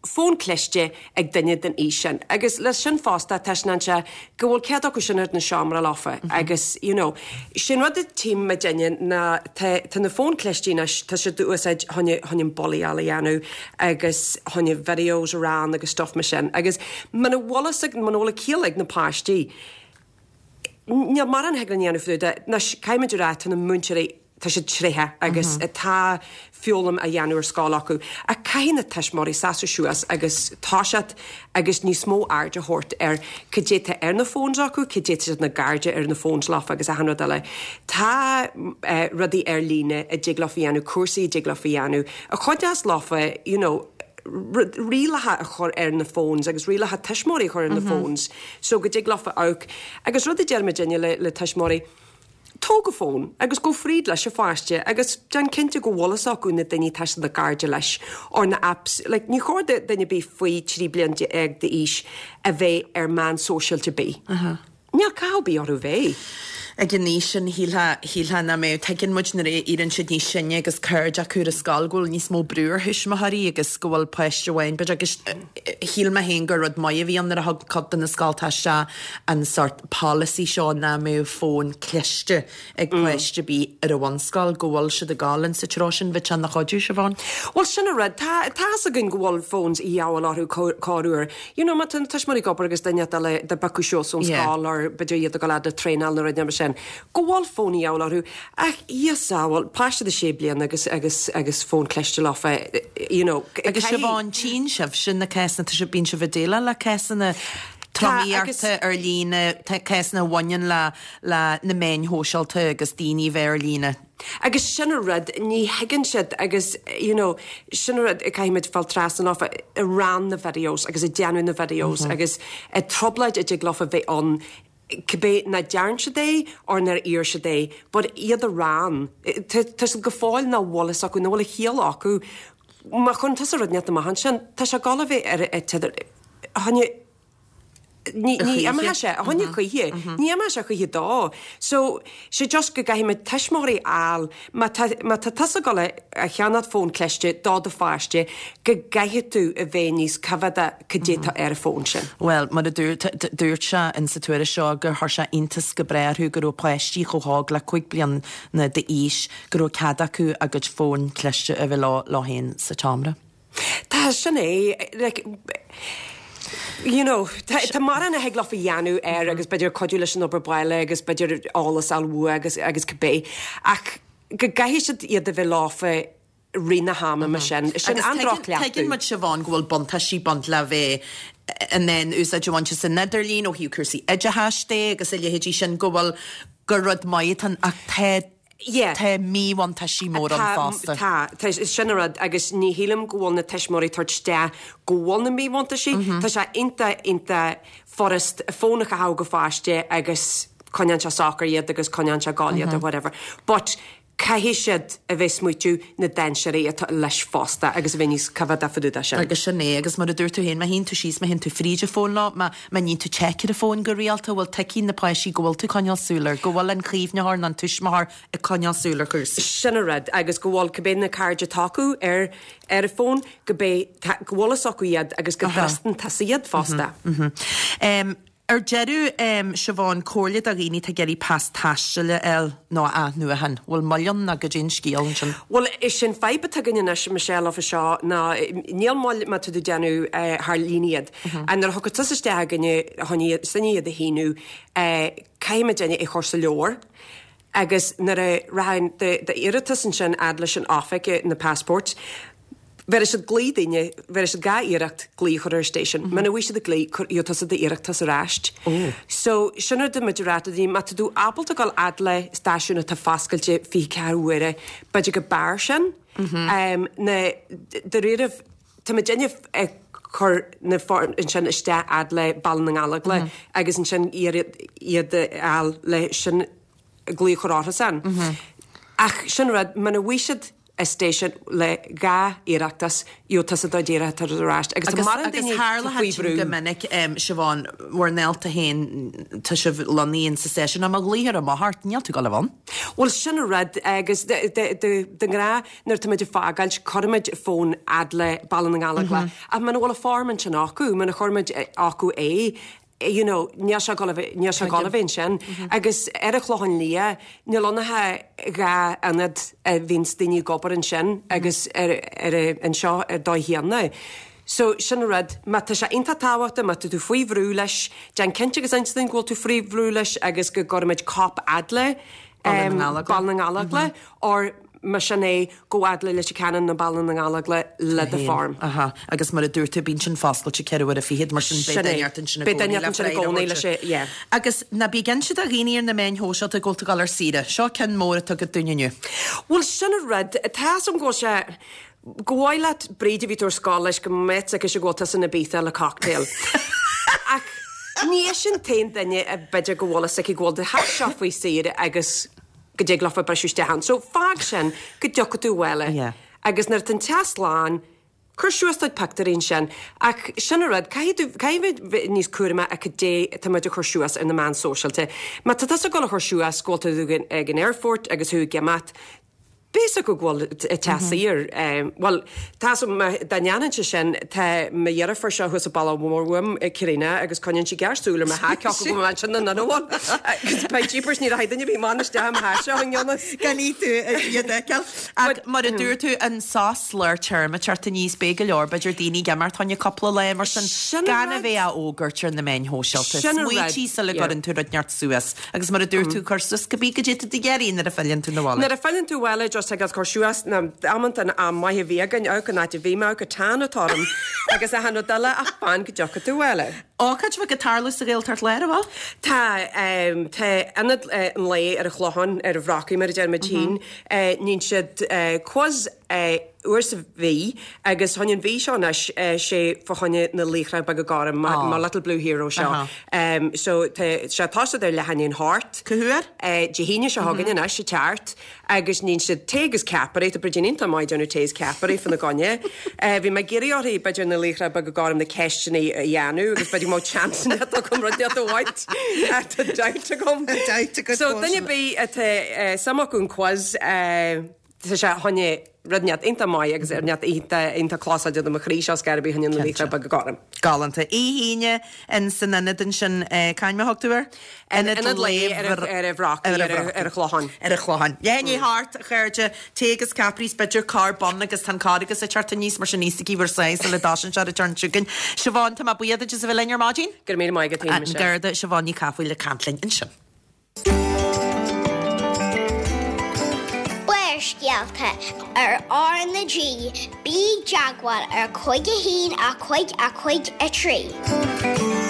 S6: fón cliste ag duine den aois sin. Agus leis sin fosta, taispeánann sé go bhfuil cead acu sin ar na seomra leofa agus, you know, sin rud a tchím muidinne ná tá, tá na fóin cliste anois, tá siad á úsáid chun, chun an bullaíáil a dhéanamh agus chun videos a rán agus stuff mar sin. Agus muna bhfuil fhios ag, muna bhfuil a ciall ag na páistí, níl mórán a thig linn a dhéanamh fá dtaobh de. Anois, caithfimid a rá, tá na múinteoirí. tá siad tréitheach agus tá foghlaim á dhéanamh ar scoil acu. Ach caithfidh na tuismitheoirí seasamh suas agus toiseacht agus níos mó aird a thabhairt ar cad é tá ar na phones acu, cad é tá siad na gcairde ar na phones leofa agus achan rud eile. Tá rudaí ar líne a dtig leofa a dhéanamh, cúrsaí a dtig leofa a dhéanamh, a chuideos leofa, you know, rialacha a chur ar na phones agus rialacha tuismitheoirí a chur ar na phones so go dtig leofa amharc. Agus rud a deir muidinne le tuismitheoirí, Tóg an fón agus gabh fríd leis an pháiste agus déan cinnte go bhfuil fhios acu na daoine atá siad ina gcairde leis or na apps. Like, ní chóir do duine ar bith faoi 13 bliain d'aois a bheith ar meán sóisialta ar bith. Níl cathú ar bith orthu bheith.
S1: Ag an aois sin, shílfeá, shílfeá nach mbeadh. Tuigeann muid nuair a éiríonn siad níos sine agus cairde acu ar an scoil go bhfuil níos mó brú ar thuismitheoirí agus go bhfuil páiste amháin, b'fhéidir, agus shíl mé féin gur rud maith a bhí ann nuair a thug cuid de na scoltacha isteach an sórt polasaí seo nach mbeadh fón cliste ag páiste ar bith ar an bhunscoil, go bhfuil siad ag dul in sa treo sin, bheadh sé ina chuidiú, Siobhán.
S6: Bhuel, sin an rud. Tá, tá fhios againn go bhfuil phones a dhíobháil orthu corruair. You know, má tá na tuismitheoirí ag obair agus duine eile dá bpiocadh suas ón scoil or b'fhéidir iad ag dul fhad le traenáil nó rud mar sin, go bhfuil fón a dhíobháil orthu. Ach, Dhia sábháil, páiste de sé bliana agus, agus, agus fón cliste leofa, you know,
S1: Agus Siobhán, tchíonn sibhse na cásanna, tá sibh, bíonn sibh ag déileáil le cásanna tromaíochta ar líne, cásanna a bhaineann le, le na meáin shóisialta agus daoine a bheith ar líne.
S6: Agus sin an rud, ní thuigeann siad agus, you know, sin an rud, caithfimid fáil trasna leofa, ag run na videos agus ag déanamh na videos agus trioblóid a dtig leofa bheith ann, cibé nach dtearn siad é or nár iarr siad é, but iad a run, tá siad go fóill nach bhfuil fhios acu, nach bhfuil a chiall acu, má chuireann tusa rud inteacht amach ansin, tá sé ag dul a bheith ar an t-idir, choinne, ní imeoidh sé, a choinne choíche, ní imeoidh sé choíche dó. So, sé just go gcaithfimid tuismitheoirí a fháil, má tá, má tá tusa ag dul a cheannacht fón cliste do do pháiste, go gcaithfidh tú a bheith níos coimhéadach cad é tá ar an bhfón sin.
S1: Bhuel, mar a dúirt, dúirt sé in sa tuairisc seo gur chuir sé iontas go breá orthu go raibh páistí chomh hóg le 5 bliana d'aois go raibh cead acu a gcuid fón cliste a bheith leo, leo féin sa tseomra.
S6: Tá, sin é, like, you know, tá, tá mórán a thig leofa a dhéanamh air agus b'fhéidir cuidiú leis an obair baile agus b'fhéidir eolas a fháil uaidh agus, agus cibé. Ach go gcaithfidh siad iad a bheith leofa rith na hama mar sin. Sin
S1: Agus
S6: an
S1: tuigeann,
S6: droch-chleachtadh.
S1: tuigeann muid, Siobhán, go bhfuil buntáistí ag baint le bheith in ann úsáid a bhaint as an idirlíon ó thaobh cúrsaí oideachais de agus a leithéidí sin, go bhfuil, gur rud maith atá ann ach tá,
S6: Yeah.
S1: Tá míbhuntáistí móra ann
S6: Tá,
S1: fosta.
S6: tá, tá, sin an rud agus ní shílim go bhfuil na tuismitheoirí ag tabhairt isteach go bhfuil na míbhuntáistí. Tá sé iontach, iontach furast fón a chaitheamh go pháiste agus coinneann sé socair iad agus coinneann sé ag gol iad or whatever. But caithfidh siad a bheith smaoitiú na dainséirí atá leis fosta agus a bheith níos coimhéadach fá dtaobh de sin.
S1: Agus sin é, agus mar a dúirt tú féin, má théann tú síos, má théann tú fríd an fón leo, má, má níonn tú check ar an bhfón go rialta, bhfuil tuigfidh na páistí go bhfuil tú ag coinneáil súil air, go bhfuil an caomhnaitheoir nó an tuismitheoir ag coinneáil súil ar chúrsaí.
S6: Sin an rud, agus go bhfuil cibé na cairde atá acu ar ar an bhfón, go bé, go bhfuil fhios acu iad agus go dtrustann tusa iad fosta.
S1: Ar deireadh, Siobhán, comhairle do dhaoine atá ag iarraidh pas taistil a fháil nó a athnuachan. Bhfuil moill ann nó goidé an scéal ansin?
S6: Bhuel, is é an fadhb atá againn anois, Michelle, fá seo ná níl moill má tá tú ag déanamh thar líne iad. Nuair a thiocfas tusa isteach chugainne chun iad, sinne iad a shíniú, caithfimid é a chur sa leabhar agus nuair a rachaidh d'iarratas ansin fhad leis an oifig, na passports, bhéarfaidh siad glao duine, bhéarfaidh siad dhá iarracht glao a chur ar an station. Muna bhfaighidh siad an glao, cuir, gheobhaidh tusa d'iarratas ar ais. So, sin rud a muid a rá do daoine, má tá tú ábalta dul fhad le stáisiún atá foscailte 24 uaire, b'fhéidir go b'fhearr sin. Na, dáiríribh, Tá muidinne ag cur na foirm ansin isteach fhad le Baile na nGallóglach agus ansin iarraidh iad a fháil le sin glao a chur orthusan. Ach sin rud, muna bhfaighidh siad an station le dhá iarrachtas, gheobhaidh tusa do d'iarratas ar ais. Agus tá mórán
S1: Agus
S6: daoine
S1: tharla
S6: faoi
S1: sin
S6: bhrú.
S1: go minic, Siobhán, bhur ndálta féin, tá sibh lonnaithe in sa stáisiún, ach má ghlaoitear amach ort, níl tú ag dul a bheith ann.
S6: Bhuel, sin an rud, agus de ghnáth nuair atá muid ag fágáilt, cuirimid fón fhad le Baile na nGallóglach, ach muna bhfuil an form ansin acu, muna chuir muid acu é, you know, níl sé ag dul a bheith, níl sé ag dul a bheith ansin. Agus ar an Chlochán Liath, níl ann ach dhá ionad a bhíonns daoine ag obair ansin agus ar, ar, anseo ar dóigh chéanna. So, sin an rud, má tá sé iontach tábhachtach, má tá tú faoi bhrú leis, déan cinnte agus inis dúinn go bhfuil tú faoi bhrú leis agus go gcuirfimid cóip fhad le.
S1: Baile na nGallóglach.
S6: Baile na nGallóglach or más sin é, gabh fhad le Leitir Ceanainn nó Baile na nGallóglach le do form.
S1: Aha, agus mar a dúirt tú, bíonn sin foscailte 24 uaire, mar sin beidh duine ort ansin i gcónaí le freagra a thabhairt.
S6: Yeah.
S1: Agus ná bí ag inse do dhaoine ar na meáin shóisialta go bhfuil tú ag dul ar saoire. Seo ceann mór atá agat dúinn inniu.
S6: Bhuel, sin an rud, tá 'fhios a'm go bhfuil sé, go mhaith leat Bríd a bhí tú ar scoil leis go mbeadh aici go bhfuil tusa in Ibiza le cocktail. Ach ní ise an t-aon duine a b'fhéidir go bhfuil fhios aici go bhfuil do theach seo faoi saoire agus go dtig leofa briseadh isteach ann. So fág sin go dtiocfaidh tú abhaile.
S1: Yeah.
S6: Agus nuair atá an teach slán, cuir suas do chuid pictiúirí ansin. Ach sin an rud, caithfidh tú, caithfidh bheith níos cúramaí a cad é atá muid a chur suas ar na meáin sóisialta. Má tá tusa ag dul a chur suas go bhfuil tú ag an aerfort agus thú ag imeacht, Beidh 'fhios acu go bhfuil teach saor. Bhuel, tá 'fhios a'm, dá ndéanfainnse sin, tá mo dheirfiúr seo thuas sa baile mór uaim, Karina, agus coinníonn sí géarsúil ar mo theach, cé acu go bhfuil ansin nó nach bhfuil. Agus beidh jeepers, ní rachaidh duine ar bith amach isteach i mo theach seo i ngan fhios.
S1: Gan í tú iad a fheiceáil. Ach mar a dúirt tú, an sos lár téarma ag teacht aníos, beidh go leor, b'fhéidir, daoine ag imeacht fá choinne cúpla lá mar sin, gan a bheith á fhógairt ar na meáin shóisialta. Smaoitigh sula gcuireann tú rud inteacht suas. Agus mar a dúirt tú, cuir suas cibé goidé tá tú ag iarraidh nuair a philleann tú 'na bhaile.
S6: Nuair a philleann tú abhaile, just ag cur suas na amanta an am maith a bhí againn, amharc an áit a bhí mé, amharc an tan atá orm, agus achan rud eile, ach fan go dtiocfaidh tú abhaile.
S1: Ócáid bheag ag tarlú sa Ghaeltacht Láir, an bhfuil?
S6: Tá, tá Ionad an Lae ar an Chlochán, ar an Bhrocaigh mar a deir muid féin, níonn siad quiz uair sa mhí agus fá choinne an mhí seo anois sé fá choinne na Laochra Beaga Gorm, mo Little Blue Hero seo. So tá sé tosaithe ar leath i ndiaidh a hocht.
S1: Cá huair?
S6: Dé hAoine seo chugainn anois ag teacht agus níonn siad tae agus ceapairí, tá Bridín iontach maith ag déanamh tae is ceapairí fá na gcoinne. Bhí mé ag iarraidh orthu b'fhéidir na Laochra Beaga Gorm na ceisteanna a dhéanamh agus b'fhéidir go mbeadh chance agam rud inteacht a bhaint. Tá doubt agam.
S1: Doubt agat
S6: So duine ar bith atá suim acu an quiz, Tá sé fá choinne rud inteacht iontach maith agus rud inteacht iontach iontach closáilte do mo chroí seo scor ar bith fá choinne na Laochra Beaga Gorm.
S1: Galánta. Oíche Aoine in san ionad ansin, cá hainm a thug tú air?
S6: Ionad Lae ar an Bhrocaigh, ar an Chlochán.
S1: Ar an Chlochán. Leath i ndiaidh a hocht, a chairde, tae agus ceapairí is b'fhéidir corr bun agus tá an Carghas ag teacht aníos mar sin íosfaidh bhur sáith sula dtosaíonn sé ar an turn chugainn. Siobhán, tá mé buíoch duit as a bheith linn ar maidin.
S6: Go raibh míle maith agat,
S1: An Garda Siobhán Ní Chathmhaoil ag caint linn ansin.
S5: Barrscéalta ar R na G, bí i dteagmháil ar 5 1 5 5 3.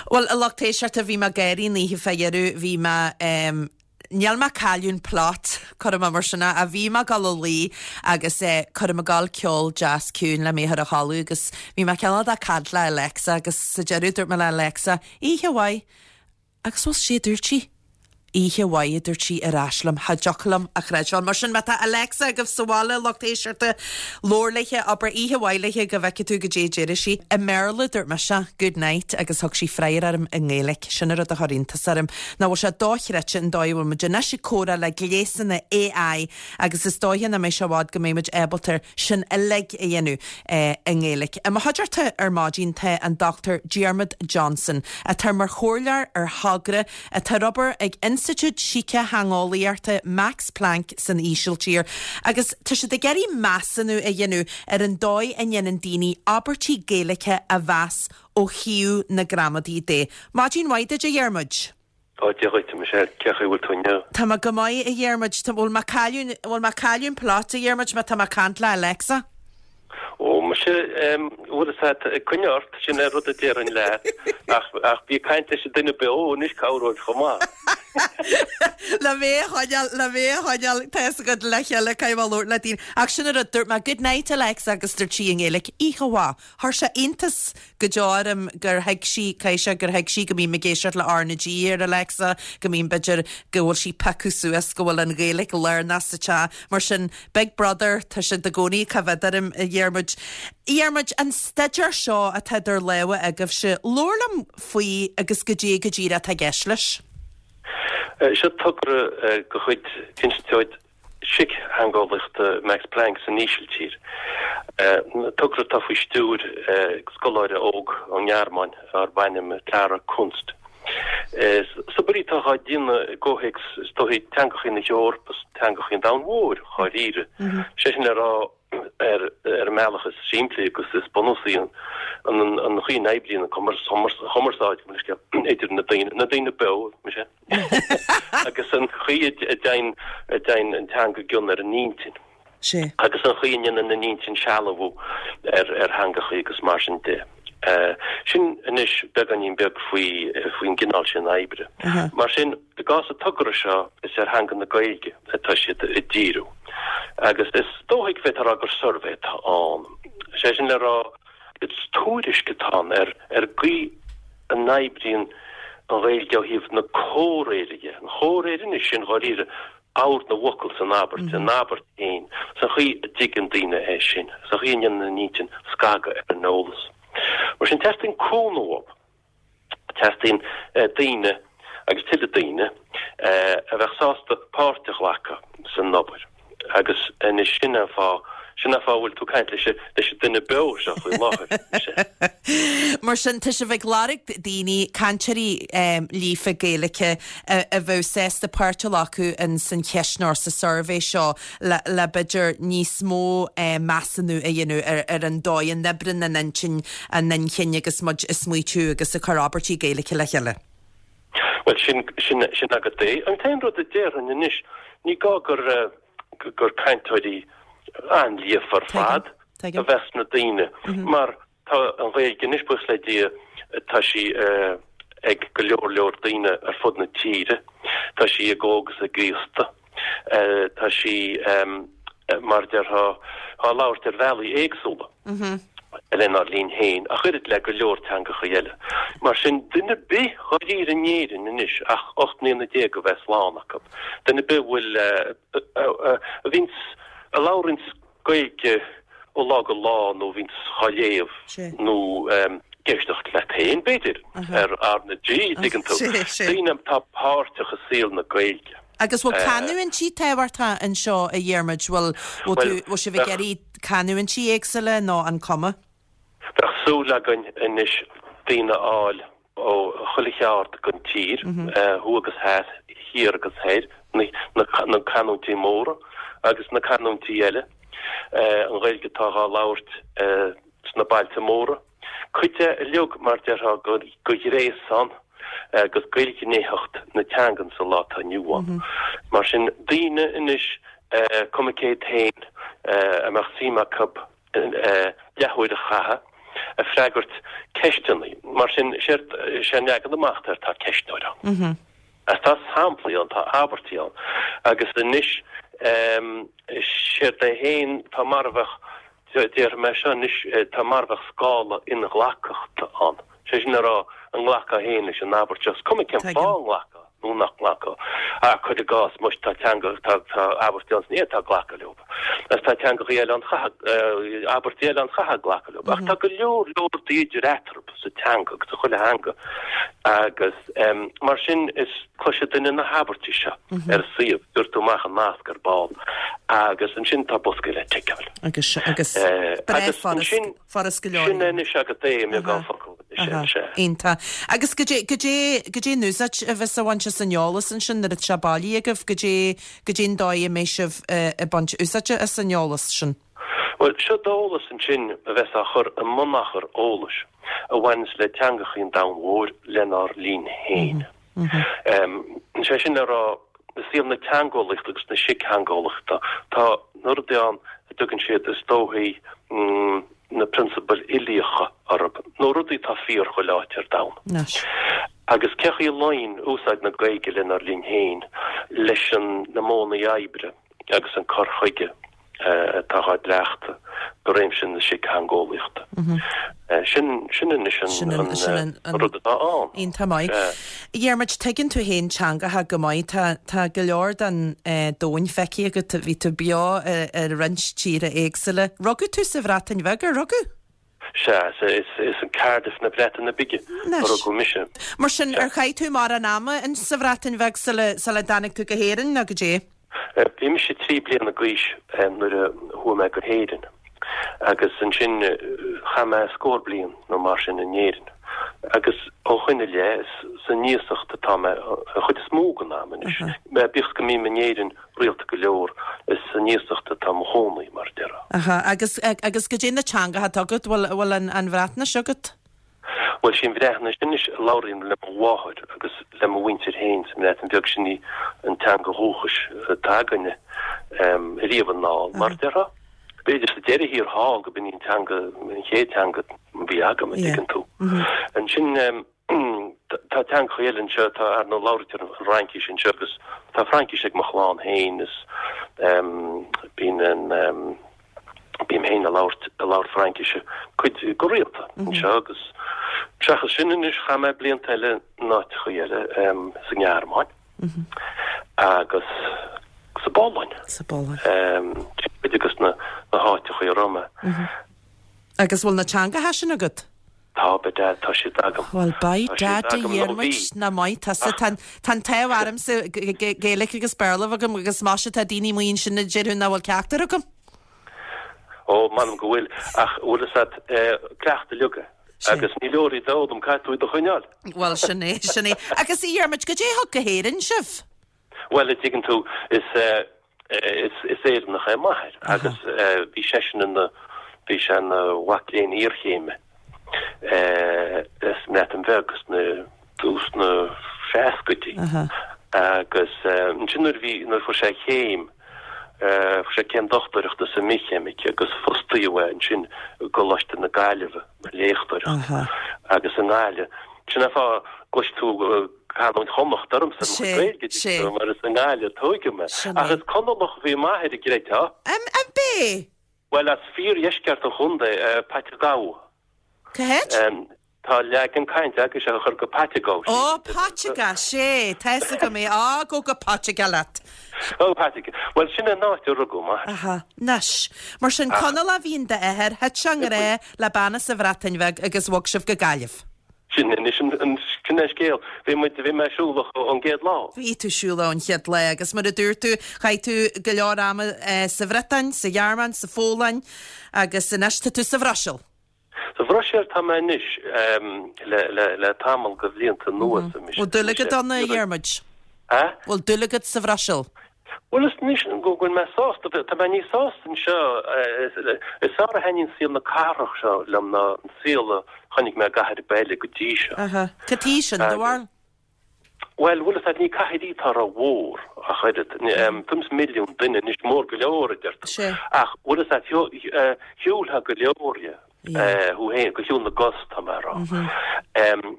S1: Bhuel, a lucht éisteachta, bhí mé ag gáirí an oíche fá dheireadh, bhí mé, em, níl mé ag cailleadh an plot, cuirfidh mé mar sin é, ach bhí mé ag dul a luí agus eh, cuirfidh mé ag dul ceol deas ciúin le mé a chur a chodladh agus bhí mé cineál de caint le Alexa agus sa deireadh dúirt mé le Alexa, Oíche mhaith. Agus bhuel, sé a dúirt sí. Oíche mhaith, a dúirt sí ar ais liom. Cha dtiocfadh liom a chreidbheáil. Mar sin, má tá Alexa agaibh sa bhaile, lucht éisteachta, labhair léithe, abair oíche mhaith léithe go bhfeicfidh tú goidé a déarfaidh sí. I mBéarla, dúirt mise, good night, agus thug sí freagra orm i nGaeilge. Sin an rud a chuir iontas orm. Nach bhfuil sé dochreidte an dóigh a bhfuil muid anois ag comhrá le gléasanna AI agus is dóiche nach mbeidh sé i bhfad go mbeidh muid ábalta sin uilig a dhéanamh i nGaeilge. I mo chuideachta ar maidin tá an Dr Diarmuid Johnson, atá mar chomhairleoir ar thogra atá ar obair ag Institiúid Sícitheangeolaíochta Max Planck san Ísiltír agus tá siad ag iarraidh measúnú a dhéanamh ar an dóigh a ndéanann daoine abairtí Gaeilge a mheas ó thaobh na gramadaí de. Maidin mhaith duit, a Dhiarmuid.
S7: Ó, Dia dhuit, a Michelle, cén chaoi a bhfuil tú inniu?
S1: Tá mé go maith, a Dhiarmuid. Tá, bhfuil mé ag cailleadh, bhfuil mé ag cailleadh an plot, a Dhiarmuid, má tá mé ag caint le Alexa?
S7: Ó, muise, em, bhfuil fhios agat, ag coinne ort, sin é rud a déarfainn leat, ach, ach bí ag caint leis an duine beo anois, cabhróidh chomh maith.
S1: Le mé a choinneáil, le mé a choinneáil, tá fhios agat, le chéile, caithfidh mé labhairt le daoine. Ach sin an rud, dúirt mé, good night, Alexa, agus dúirt sí i nGaeilge, oíche mhaith. Chuir sé iontas go deo orm gur thuig sí, caithfidh sé gur thuig sí go mbím ag éisteacht le R na G ar Alexa, go mbím, b'fhéidir, go bhfuil sí piocadh suas go bhfuil an Ghaeilge lárnach sa teach. Mar sin, Big Brother, tá siad i gcónaí ag coimhéad orm, a Dhiarmuid. A Dhiarmuid, an staidéar seo atá idir lámha agaibhse, labhair liom faoi agus goidé go díreach atá i gceist leis.
S7: Seo togra de chuid Institiúid Síctheangeolaíochta Max Planck san Ísiltír. Togra atá faoi stiúir scoláire óg ón nGearmáin darb ainm Clara Kunst. Is obair í atá á déanamh i gcomhthéacs is dóichí teangacha na hEorpa is teangacha an domhain mhóir dháiríre. Sé sin le rá. ar ar an mbealach is simplí agus is bunúsaí an an chaoi a n-oibríonn an chumarsáid idir na daoine, na daoine beo, mise, agus an chaoi a dtéann a dtéann an teanga i gcion ar an intinn.
S1: Sea.
S7: Agus an chaoi a ndéanann an intinn sealbhú ar ar theangachaí agus mar sin de. Sin anois beagáinín beag faoi faoin gcineál sin oibre. Mar sin, i gcás an togra seo, is ar theanga na Gaeilge atá siad ag díriú. Agus is dóigh go bhféadfá a rá gur suirbhé atá ann. Sé sin le rá, is tuairisc atá ann ar ar an gcaoi a n-oibríonn an Ghaeilge ó thaobh na comhréire dhe. An chomhréir anois sin dháiríre ord na bhfocal san abairt, an abairt féin, is an chaoi a dtuigeann daoine é sin, is an chaoi a ndéanann an intinn scagadh ar an eolas. Mar sin, teastaíonn cúnamh uathu. Teastaíonn daoine, agus tuilleadh daoine, a bheadh sásta páirt a ghlacadh san obair. Agus anois sin an fáth, sin an fáth a bhfuil tú ag caint leis an, leis an duine beo seo faoi láthair.
S1: Mar sin, tá sibh ag lorg daoine, cainteoirí líofa Gaeilge a bheadh sásta páirt a ghlacadh in san cheistneoir, sa suirbhé seo le, le b'fhéidir níos mó measúnú a dhéanamh ar, ar an dóigh a n-oibríonn an intinn, an inchinn agus muid ag smaoitiú agus ag cur abairtí Gaeilge le chéile.
S7: Bhuel, sin, sin, sin agat é. An t-aon rud a déarfainn anois, ní gá gur, gur cainteoirí an-líofa ar fad a bheas sna daoine, mar tá an Ghaeilge anois, buíochas le Dia, tá sí ag go leor leor daoine ar fud na tíre, tá sí ag óg is ag aosta. Tá sí, mar a déarfá, á labhairt ar bhealaí éagsúla lenár linn féin, ach oiread le go leor teangacha eile. Mar sin, duine ar bith dháiríre in Éirinn anois ach 18 mbliana a bheith slán acu, duine ar bith a bhfuil, a bhíonns, a labhraíonns Gaeilge ó lá go lá nó a bhíonns dhá léamh nó ag éisteacht leat féin, b'fhéidir, ar R na G, dtuigeann tú. Daoine atá páirteach i saol na Gaeilge.
S1: Agus bhfuil canúintí tábhachtach anseo, a Dhiarmuid? Bhfuil, bhfuil tú, bhfuil sibh ag iarraidh canúintí éagsúla nó an cuma?
S7: Bheadh súil againn anois daoine a fháil ó chuile cheard den tír, thuaidh agus theas, thiar agus thoir, na canúintí móra agus na canúintí eile, an Ghaeilge atá dhá labhairt sna bailte móra, cuid de uilig, mar déarfá, de ghréasán agus d'ilghnéitheacht na teangan sa lá atá inniu ann. Mar sin, daoine anois, cuma cé hiad féin, a mbeadh suim acu leathuair a chaitheamh ag freagairt ceisteanna. Mar sin, séard, sé an leagan amach atá air, tá ceistneoir ann. Agus tá samplaí ann, tá abairtí ann. Agus anois, séard é féin, tá mar a bheadh, déarfaidh mé seo anois, tá mar a bheadh scála inghlacthachta ann. Sé sin le rá, an nglacfá féin leis an abairt seo, is cuma cén fáth a nglacfá nó nach nglacfá. Ach cuir i gcás, muis, tá teanga, tá, tá abairtí ann is ní fhéadfá glacadh leo. Agus tá teangachaí eile ann, chaithfeá, abairtí eile ann chaithfeá glacadh leo. Ach tá go leor, leor rudaí idir eatarthu sa teanga agus sa chuile theanga. Agus mar sin, is cloisfidh duine na habairtí seo ar an suíomh, gheobhaidh tú amach an nasc ar ball. Agus ansin tá bosca le ticeáil.
S1: Agus, agus, breá furast. Furast go leor.
S7: Sin anois agat é i mbeagán focal.
S1: Sea. Iontach. Agus goidé, goidé, goidé an úsáid a bheas á bhaint as an eolas ansin nuair atá sé bailithe agaibh? Goidé, goidé an dóigh a mbeidh sibh ag baint úsáide as an eolas sin?
S7: Bhuel, seo d'eolas ansin a bheas á chur i mbunachar eolais a bhaineas le teangachaí an domhain mhóir lenár linn féin. Sé sin le rá, i saol na teangeolaíochta agus na síctheangeolaíochta, tá na rudaí ann a dtugann siad, is dóichí, na prionsabail uilíocha orthu, nó rudaí atá fíor chuile áit ar domhan. Agus cé chaoi a luíonn úsáid na Gaeilge lenár linn féin leis na modhanna oibre agus an cur chuige atá á gcleachtadh i réimse na síctheangeolaíochta. Sin, sin anois an rud atá ann.
S1: Iontach maith. A Dhiarmuid, tuigeann tú féin teangacha go maith. Tá, tá go leor den domhan feicthe agat. Bhí tú beo i roinnt tíortha éagsúla. Rugadh tú sa Bhreatain Bheag, ar rugadh?
S7: Sea, is in Cardiff na Breataine Bige a rugadh mise.
S1: Mar sin, ar chaith tú mórán ama in sa Bhreatain Bheag sula, sula dtáinig tú go hÉirinn, nó goidé?
S7: Bhí mise 3 bliana d'aois nuair a chuaigh mé go hÉirinn agus ansin chaith mé scór bliain nó mar sin in Éirinn. Agus ó shoin i leith, is san iasacht atá mé an chuid is mó den am anois. Bíodh is go mbím in Éirinn rialta go leor, is san iasacht atá mo chónaí, mar a déarfá.
S1: Aha, agus, agus goidé na teangacha atá agat, bhfuil, bhfuil an, an Bhreatnais agat?
S7: Bhuel, sí an Bhreatnais anois a labhraím le mo mháthair agus le mo mhuintir féin sa mBreatain Bheag, sin í an teanga dhúchais atá againne riamh anall, mar a déarfá. B'fhéidir sa deireadh thiar thall go b'in í an teanga, an chéad teanga a bhí agam, an dtuigeann tú. Ansin tá teangacha eile anseo, tá, ar ndóigh, labhraítear an Fhraincis anseo agus tá Fraincis ag mo chlann féin is bíonn an, Bím féin ag labhairt, ag labhairt Fraincise cuid go rialta anseo agus seachas sin anois chaith mé blianta eile in áiteachaí eile, sa nGearmáin agus sa bPolainn.
S1: Sa bPolainn.
S7: Sin cuid de na háiteachaí a raibh mé.
S1: Agus bhfuil na teangacha sin agat?
S7: Tá, by dad, tá siad agam.
S1: Bhuel, by dad a Dhiarmuid, nach maith tusa. Tá an t-ádh ormsa Gaeilge agus Béarla agam agus maise tá daoine amuigh ansin a déarfadh nach bhfuil ceachtar agam.
S7: Ó, m'anam go bhfuil, ach bhfuil fhios a't, cleachtadh uilig é. Agus ní leor iad a fhoghlaim, caithfidh tú iad a choinneáil.
S1: Bhuel, sin é, sin é. Agus a Dhiarmuid, goidé a thug go hÉirinn sibh?
S7: Bhuel, a dtuigeann tú, is is Éireannach é m'athair agus bhí seisean ina, bhí sé ina mhac léinn iarchéime sa mBreatain Bheag sna, tús na seascaidí agus ansin nuair a bhí, nuair a fuair sé a chéim, fuair sé céim dochtúireachta sa mbithcheimic agus fostaíodh é ansin i gColáiste na Gaillimhe mar léachtóireacht agus i nGaillimh. Sin é an fáth gcloisfidh tú canúint Chonnacht ormsa i mo chuid Gaeilge,
S1: Sé.
S7: mar is i nGaillimh a tóigeadh mé. Ach is Conallach a bhí m'athair, an gcreidfeá.
S1: An b'é?
S7: Bhuel, as fíordheisceart an chontae, Paiteagó.
S1: Cá háit?
S7: Tá leagan cainte agaibhse a chur go Paiteagó.
S1: Ó, Paiteagó, sé, tá fhios agam é. Á, go go Paiteagó leat.
S7: Ó, Paiteagó. Bhuel, sin an áit a rugadh m'athair.
S1: Aha, anois. Mar sin, Conallach a bhí in d'athair, thit sé i ngrá le bean as an Bhreatain Bheag agus bhog sibh go Gaillimh.
S7: Sin anois an, sin é an scéal. Bhí muid, bhí mé siúlach ón gcéad lá.
S1: Bhí tú siúlach ón chéad lá agus mar a dúirt tú, chaith tú go leor ama sa Bhriotáin, sa Ghearmáin, sa Pholainn agus anois tá tú sa Bhruiséil.
S7: Sa Bhruiséil tá mé anois le, le, le tamall de bhlianta anuas.
S1: Bhfuil dúil agat ann, a Dhiarmuid?
S7: A?
S1: Bhfuil dúil agat sa Bhruiséil?
S7: Bhuel, is anois go bhfuil mé sásta, tá mé níos sásta anseo, is fearr a thaitníonn saol na cathrach seo liom ná an saol a chonaic mé i gcathair ar bith eile go dtí seo.
S1: Aha. Cad chuige sin, do bharúil?
S7: Bhuel, bhfuil fhios a't, ní cathair í atá rómhór ach oiread. Tuairim is milliún duine anois, mór go leor, a deir tú. Ach bhfuil fhios a't, shiúlfá go leor dhe, thú féin, de shiúl na gcos, tá mé a rá.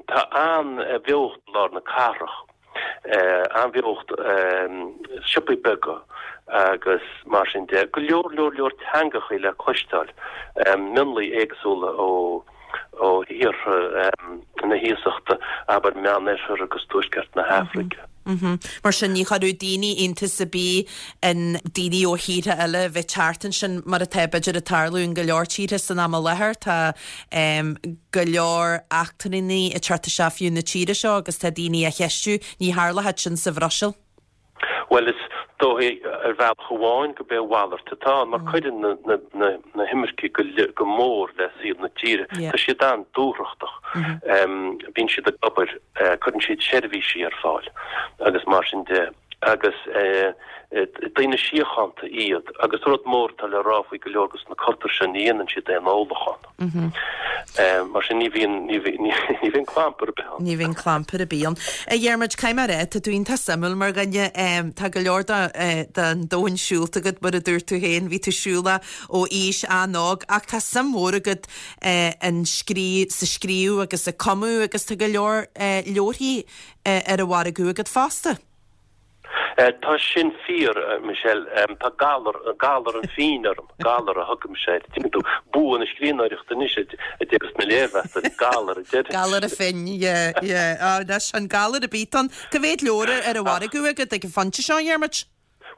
S7: Tá an-bheocht i lár na cathrach. an-bheocht, siopaí beaga agus mar sin de. Go leor leor leor teangachaí le cloisteáil, mionlaigh éagsúla ó ó thíortha na hiasachta, abair Meánoirthear agus Tuaisceart na hAfraice.
S1: Mar sin ní chuirfeadh daoine iontas ar bith in daoine ó thíortha eile a bheith ag teacht ansin mar atá b'fhéidir ag tarlú in go leor tíortha san am i láthair. Tá go leor eachtrannaigh ag teacht isteach fiú na tíre seo agus tá daoine á cheistiú, ní tharlódh sin sa Bhruiséil.
S7: Bhuel, is dóigh ar bhealach amháin go b'é a mhalairt atá ann, mar cuireann na himircigh go mór le saol na tíre. Tá siad an-dúthrachtach. Bíonn siad ag obair, cuireann siad seirbhísí ar fáil agus mar sin de. Agus daoine síochánta iad. Agus rud mór atá le rá faoi go leor de na cultúir seo, ní dhéanann siad aon ólachán. Mar sin ní bhíonn, ní bhíonn clampar ar bith ann.
S1: Ní bhíonn clampar ar bith ann. A Dhiarmuid, caithfidh mé a rá, tá tú iontach suimiúil mar dhuine. Tá go leor den domhan siúlta agat, mar a dúirt tú féin, bhí tú siúlach ó aois an-óg, ach tá suim mhór agat in scríobh, sa scríobh agus ag cumadh agus tá go leor leabharthaí ar an mhargadh agat fosta.
S7: Tá sin fíor, Michelle. Tá galar, galar an phinn orm, galar a thugaimse air. Tuigeann tú, bua na scríbhneoireachta anois a déarfas na léirmheastóirí, galar a deir.
S1: Galar an phinn, yeah, yeah. Á, anois, an galar ar bith ann. Cá mhéad leabhar ar an mhargadh agat ag an phointe seo, a Dhiarmuid?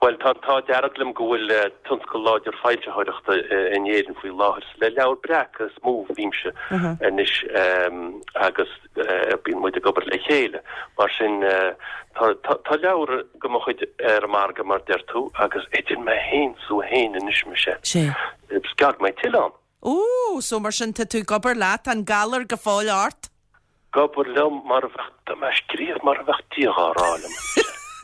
S7: Bhuel, tá an t-ádh dearg liom go bhfuil tionscal láidir foilsitheoireachta in Éirinn faoi láthair. Is le Leabhar Breac is mó a bhímse anois agus bíonn muid ag obair le chéile. Mar sin, tá leabhar de mo chuid ar an margadh, mar deir tú, agus idir mé féin 's thú féin anois, Michelle, is gearr go mbeidh tuilleadh ann.
S1: Ó, so mar sin tá tú ag obair leat, tá an galar go fóill ort?
S7: Ag obair liom mar a bheadh, tá mé ag scríobh mar a bheadh Dia dhá rá liom.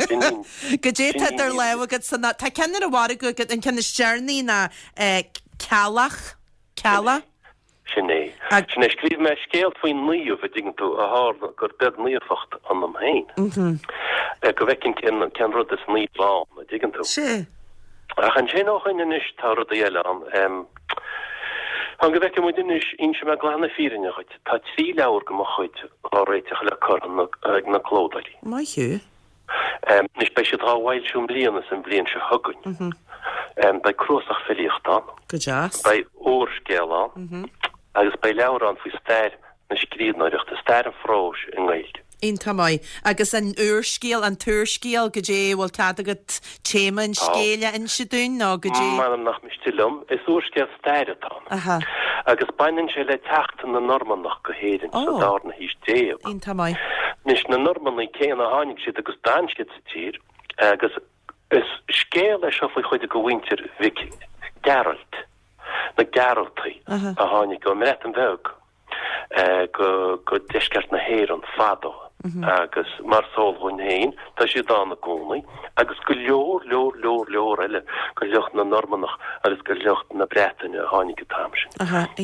S7: Sin í.
S1: Goidé tá idir lámha agat san, tá ceann ar an mhargadh agat, an ceann is deireanaí ná Ceallach, Cealla?
S7: Sin é. Sin é. Scríobh mé scéal faoi naomh, a dtuigeann tú, a tharla gur beag naofacht ionam féin. Go bhfeicfinn cén, cén rud is naomh ann, a dtuigeann tú.
S1: Sea.
S7: Ach ansin ó shoin anois tá rudaí eile ann. Fan go bhfeicfidh muid anois, inseoidh mé glan na fírinne dhuit, tá trí leabhar de mo chuid dhá réiteach le cur ag na clódóirí.
S1: Maith thú.
S7: Anois beidh siad dhá bhfoilsiú i mbliana is an bhliain seo chugainn. Beidh cnuasach filíochta ann.
S1: Go deas.
S7: Beidh úrscéal ann agus beidh leabhar ann faoi stair na scríbhneoireachta, stair an phróis i nGaeilge.
S1: Iontach maith. Agus an úrscéal, an t-úrscéal, goidé, bhfuil cead agat téama an scéil a inse dúinn nó goidé?
S7: M'anam nach miste liom. Is úrscéal staire atá ann.
S1: Aha.
S7: Agus baineann sé le teacht na Normannach go hÉirinn sa
S1: Ó.
S7: darna haois déag.
S1: Iontach maith.
S7: Anois, na Normannaigh céanna, tháinig siad agus d'fhan siad sa tír agus is scéal é seo faoi chuid de mhuintir Mhic Gearailt, na Gearaltaigh,
S1: Aha.
S7: a tháinig ón mBreatain Bheag. go deisceart na hÉireann fadó agus mar is eol dhúinn féin, tá siad ann i gcónaí agus go leor, leor, leor, leor eile de shliocht na Normannach agus de shliocht na Breataine a tháinig an t-am sin.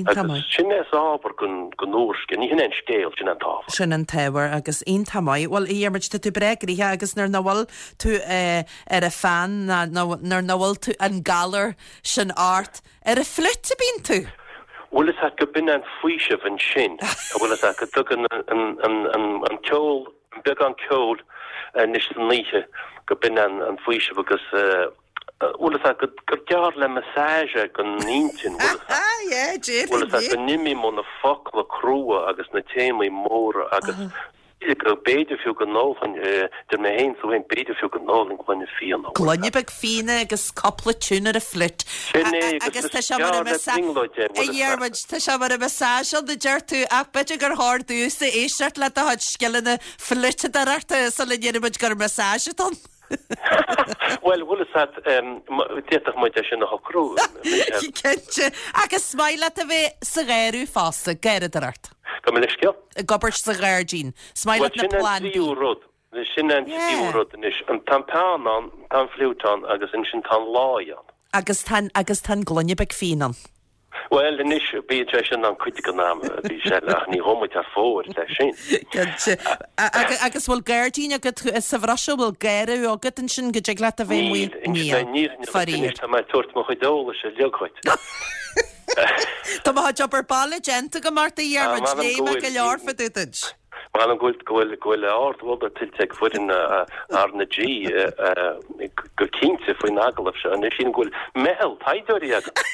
S7: Agus sin é is ábhar don úrscéal, ní hin é an scéal, sin é an t-ábhar.
S1: Sin an t-ábhar agus iontach maith. Bhuel, a Dhiarmuid, tá tú breá gnoitheach agus nuair nach bhfuil tú ar an pheann ná nuair nach bhfuil tú an galar sin ort, Ar an fliúit a bíonn tú?
S7: Bhfuil fhios a't go b'in an faoiseamh ansin, a bhfuil fhios a't go dtugann an ceol, an beagán ceoil anois san oíche, go b'in an faoiseamh agus bhfuil fhios a't gur gearr le massage é don intinn, bhfuil fhios
S1: a't,
S7: bhfuil fhios a't go n-imím ó na focla crua agus na téamaí móra agus go b'fhéidir fiú go n-ólfainn, deir mé féin is tú féin, b'fhéidir fiú go n-ólfainn gloine fíona.
S1: Gloine beag fíona agus cúpla tiún ar an fliúit.
S7: Sin é, agus
S1: tá sé mar a A Dhiarmuid, tá sé mar a massage ann a deir tú, ach b'fhéidir gur chóir domhsa éisteacht le do chuid scileanna fliúiteadóireachta sula ndéarfaidh muid gur massage atá ann.
S7: Bhuel, bhfuil fhios a't, d'fhéadfadh muid é sin a shocrú, Michelle.
S1: Cinnte. Agus is maith leat a bheith sa gharradh fosta, garradóireacht.
S7: Gabh mo leithscéal?
S1: Ag obair sa ghairdín. Is maith leat na
S7: Bhuel, sin an
S1: plandaí.
S7: tríú rud. Sin an tríú rud anois. Tá an peann ann, tá an fliúit ann agus ansin tá an láí ann.
S1: Agus tá an, agus tá an gloine beag fíon ann.
S7: Bhuel, anois, bíonn sé sin ann cuid den am, a Mhichelle, ach ní ghabhfaidh muid thar fóir leis sin.
S1: Cinnte. Agus bhfuil gairdín agat sa Bhruiséil, bhfuil garradh agat ansin go dtig leat a bheith amuigh?
S7: Níl, níl, níl,
S1: Faraor.
S7: anois tá mé ag tabhairt mo chuid eolais uilig dhuit.
S1: Tá mo chuid obair baile déanta agam ort, a Dhiarmuid,
S7: M'anam
S1: léigh
S7: go
S1: mé
S7: bhfuil.
S1: go leor fá dtaobh duit.
S7: M'anam go bhfuil, go bhfuil, go bhfuil ardmholadh tuillte ag foireann R na G go cinnte faoin agallamh seo. Anois sílim go bhfuil meitheal taighdeoirí agat.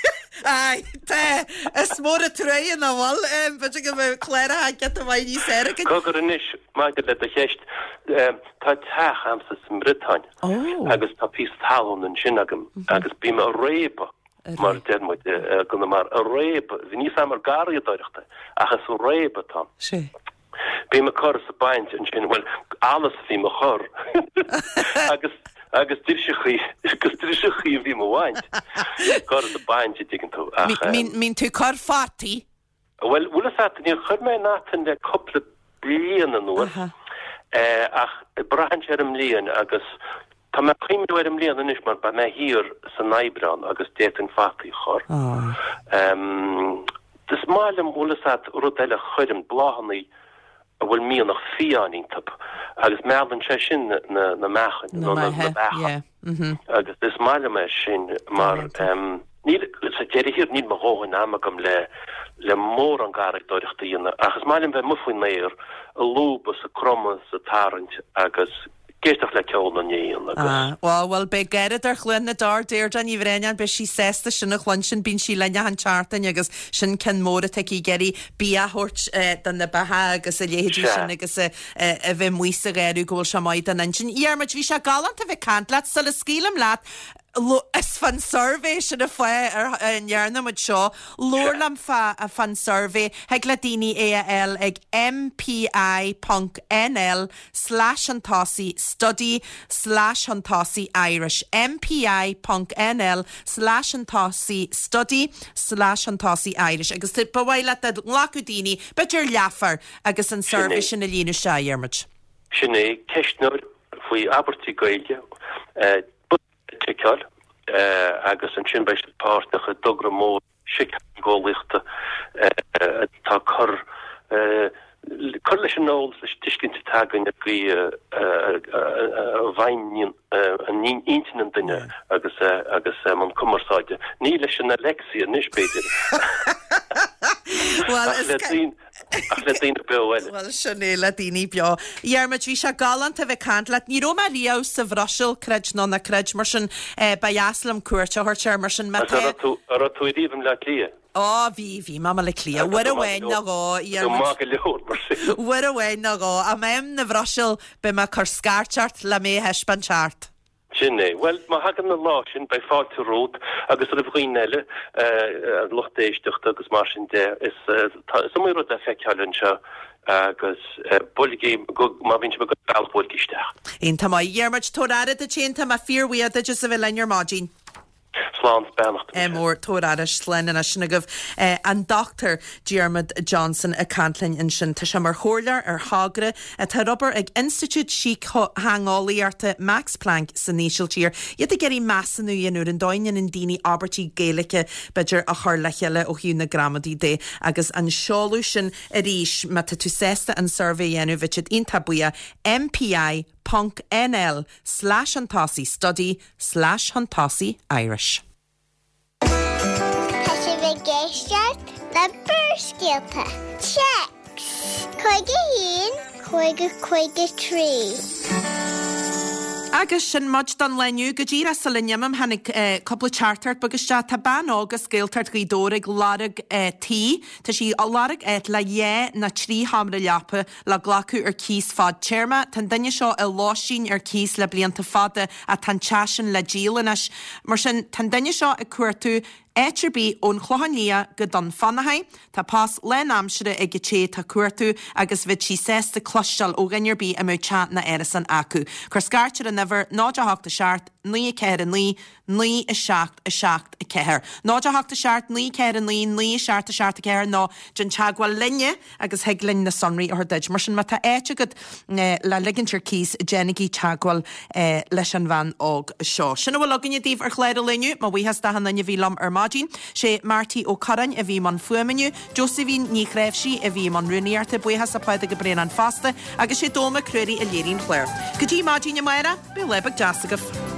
S1: Aye, tá. Is mór an truaighe nach bhfuil. B'fhéidir go mbeadh cláracha giota maith níos fearr againn.
S7: Cogar anois, maidir le do cheist, tá teach a'msa sa mBriotáin agus tá píosa talún ansin agam agus bím a' réabadh mar a deir muid i gConamara, a' réabadh, níl 'fhios a'm ar garraíodóireacht é, ach is réabadh atá ann.
S1: Sea.
S7: Bím ag cur is ag baint ansin, bhuel, allas a bhím a chur agus, agus driseachaí, agus driseachaí a bhím a bhaint. Cur is ag baint, a dtuigeann tú, ach.
S1: Mbíonn tú ag cur fataí?
S7: Bhuel, bhfuil fhios a't, níor chuir mé aon fhata le cúpla bliain anuas, ach braitheann sé ar an mbliain agus tá mé ag cuimhniú ar an mbliain anois mar beidh mé thiar san Aibreán agus d'fhéadfainn fataí a chur. Is maith liom, bhfuil fhios a't, rud eile a chuirim, bláthannaí a bhfuil mianach fiáin iontu agus meallann sé sin na meachain nó na beacha agus is maith liom é sin mar níl, sa deireadh thiar, níl mo dhóthain ama agam le le mórán garraíodóireachta a dhéanamh ach is maith liom bheith amuigh faoin aer, ag lúbadh is ag cromadh is ag tarraingt agus. ag éisteacht le ceol na n-éan agus.
S1: Ah, bhuel, bhuel, beidh Garradóir Chluain na dTor, Deirdre Ní Bhraonáin, beidh sí sásta sin a chluinstin, bíonn sí linn achan tseachtain agus sin ceann mór atá aici ag iarraidh bia a thabhairt do na beacha agus a leithéidí
S7: Sea.
S1: sin agus a bheith amuigh sa gharradh go bhfuil sé maith don intinn. Dhiarmuid, bhí sé galánta a bheith ag caint leat, sula scaoilim leat. Is fán suirbhé sin an fáth a ndearna muid seo. Labhair liom fán suirbhé. Thig le daoine é a fháil ag mpi ponc nl slash chun tosaigh study slash chun tosaigh Irish. mpi ponc nl slash chun tosaigh study slash chun tosaigh Irish. Agus ba mhaith leat dá nglacfadh daoine, b'fhéidir leathuair, agus an suirbhé sin a líonadh isteach, a Dhiarmuid.
S7: Sin é, ceistneoir faoi abairtí Gaeilge. Bosca le ticeáil agus ansin beidh siad páirteach i dtogra mór síctheangeolaíochta atá ag cur cur leis an eolas, leis an tuiscint atá againn ar an gcaoi a bhfeidhmíonn intinn an duine agus agus i mbun cumarsáide. Ní leis an Alexa anois, b'fhéidir, ach le daoine. Ach le daoine beo eile.
S1: Bhuel, sin é, le daoine beo. Dhiarmuid, bhí sé galánta a bheith ag caint leat. Ní raibh mé riamh sa Bhruiséil, creid nó ná creid, mar sin ba dheas liom cuairt a thabhairt air, mar sin má
S7: tá. An raibh tú ariamh i mBleá Cliath?
S1: Ó, bhí, bhí mé i mBaile Átha Cliath. Uair amháin nó dhó, a Dhiarmuid.
S7: Maith go leor, mar sin.
S1: Uair amháin nó dhó. Ach má bhím na Bhruiséil, beidh mé ag cur scairt ort le mé a thaispeáint thart.
S7: Sin é. Bhuel, má thagann an lá sin, beidh fáilte romhat agus roimh dhaoine eile, an lucht éisteachta agus mar sin de. Is iomaí rud le feiceáil anseo agus buailigí, má bhíonn sibh ag dul an bealach, buailigí isteach.
S1: Iontach maith. A Dhiarmuid, tabhair aire duit féin, tá mé fíorbhuíoch duit as a bheith linn ar maidin.
S7: Slán 's beannacht.
S1: Ádh mór, tabhair aire, slán anois. Sin agaibh an Dr Diarmuid Johnson ag caint linn ansin. Tá sé mar chomhairleoir ar thogra atá ar obair ag Institiúid Síctheangeolaíochta Max Planck san Ísiltír. Iad ag iarraidh measúnú a dhéanamh ar an dóigh a ndéanann daoine abairtí Gaeilge, b'fhéidir, a chur le chéile ó thaobh na gramadaí de. Agus an seoladh sin arís, má tá tú sásta an suirbhé a dhéanamh, bheadh siad iontach buíoch, MPI ponc NL slash chun tosaigh study slash chun tosaigh Irish.
S5: Tá sibh ag éisteacht le Barrscéalta. Téacs 51 50 53.
S1: Agus sin muid don lá inniu. Go díreach sula n-imím, tháinig cúpla teachtaireacht beag isteach. Tá bean óg as Gaeltacht Ghaoth Dobhair ag lorg tí. Tá sí ag lorg áit le dhá nó trí sheomra leapa. Le glacadh ar cíos fadtéarma. Tá an duine seo i lóistín ar cíos le blianta fada ach tá an teach sin le díol anois. Mar sin, tá an duine seo ag cuartú áit ar bith ón Chlochán Liath go Dún Fionnachaidh. Tá post lánaimsire ag an té atá ag cuartú agus bheadh sí sásta cloisteáil ó dhuine ar bith a mbeadh teach nó árasán acu. Cuir scairt ar an uimhir 0 8 7 9 4 9 9 7 7 4. 0 8 7 9 4 9 9 7 7 4 nó déan teagmháil linne agus thig linn na sonraí a thabhairt duit. Mar sin má tá áit agat le ligint ar cíos déanaigí teagmháil leis an bhean óg seo. Sin a bhfuil againne daoibh ar chlár an lae inniu. Mo bhuíochas d'achan duine a bhí liom ar maidin. Sé Marty Ó Curráin a bhí i mbun fuaime inniu, Josephine Ní Chnáimhsí a bhí i mbun rúnaíochta, buíochas le Pádraig Ó Braonáin fosta agus sé Dónall Mac Ruairí a léirigh an clár. Go dtí maidin amárach, bíodh lá beag deas agaibh.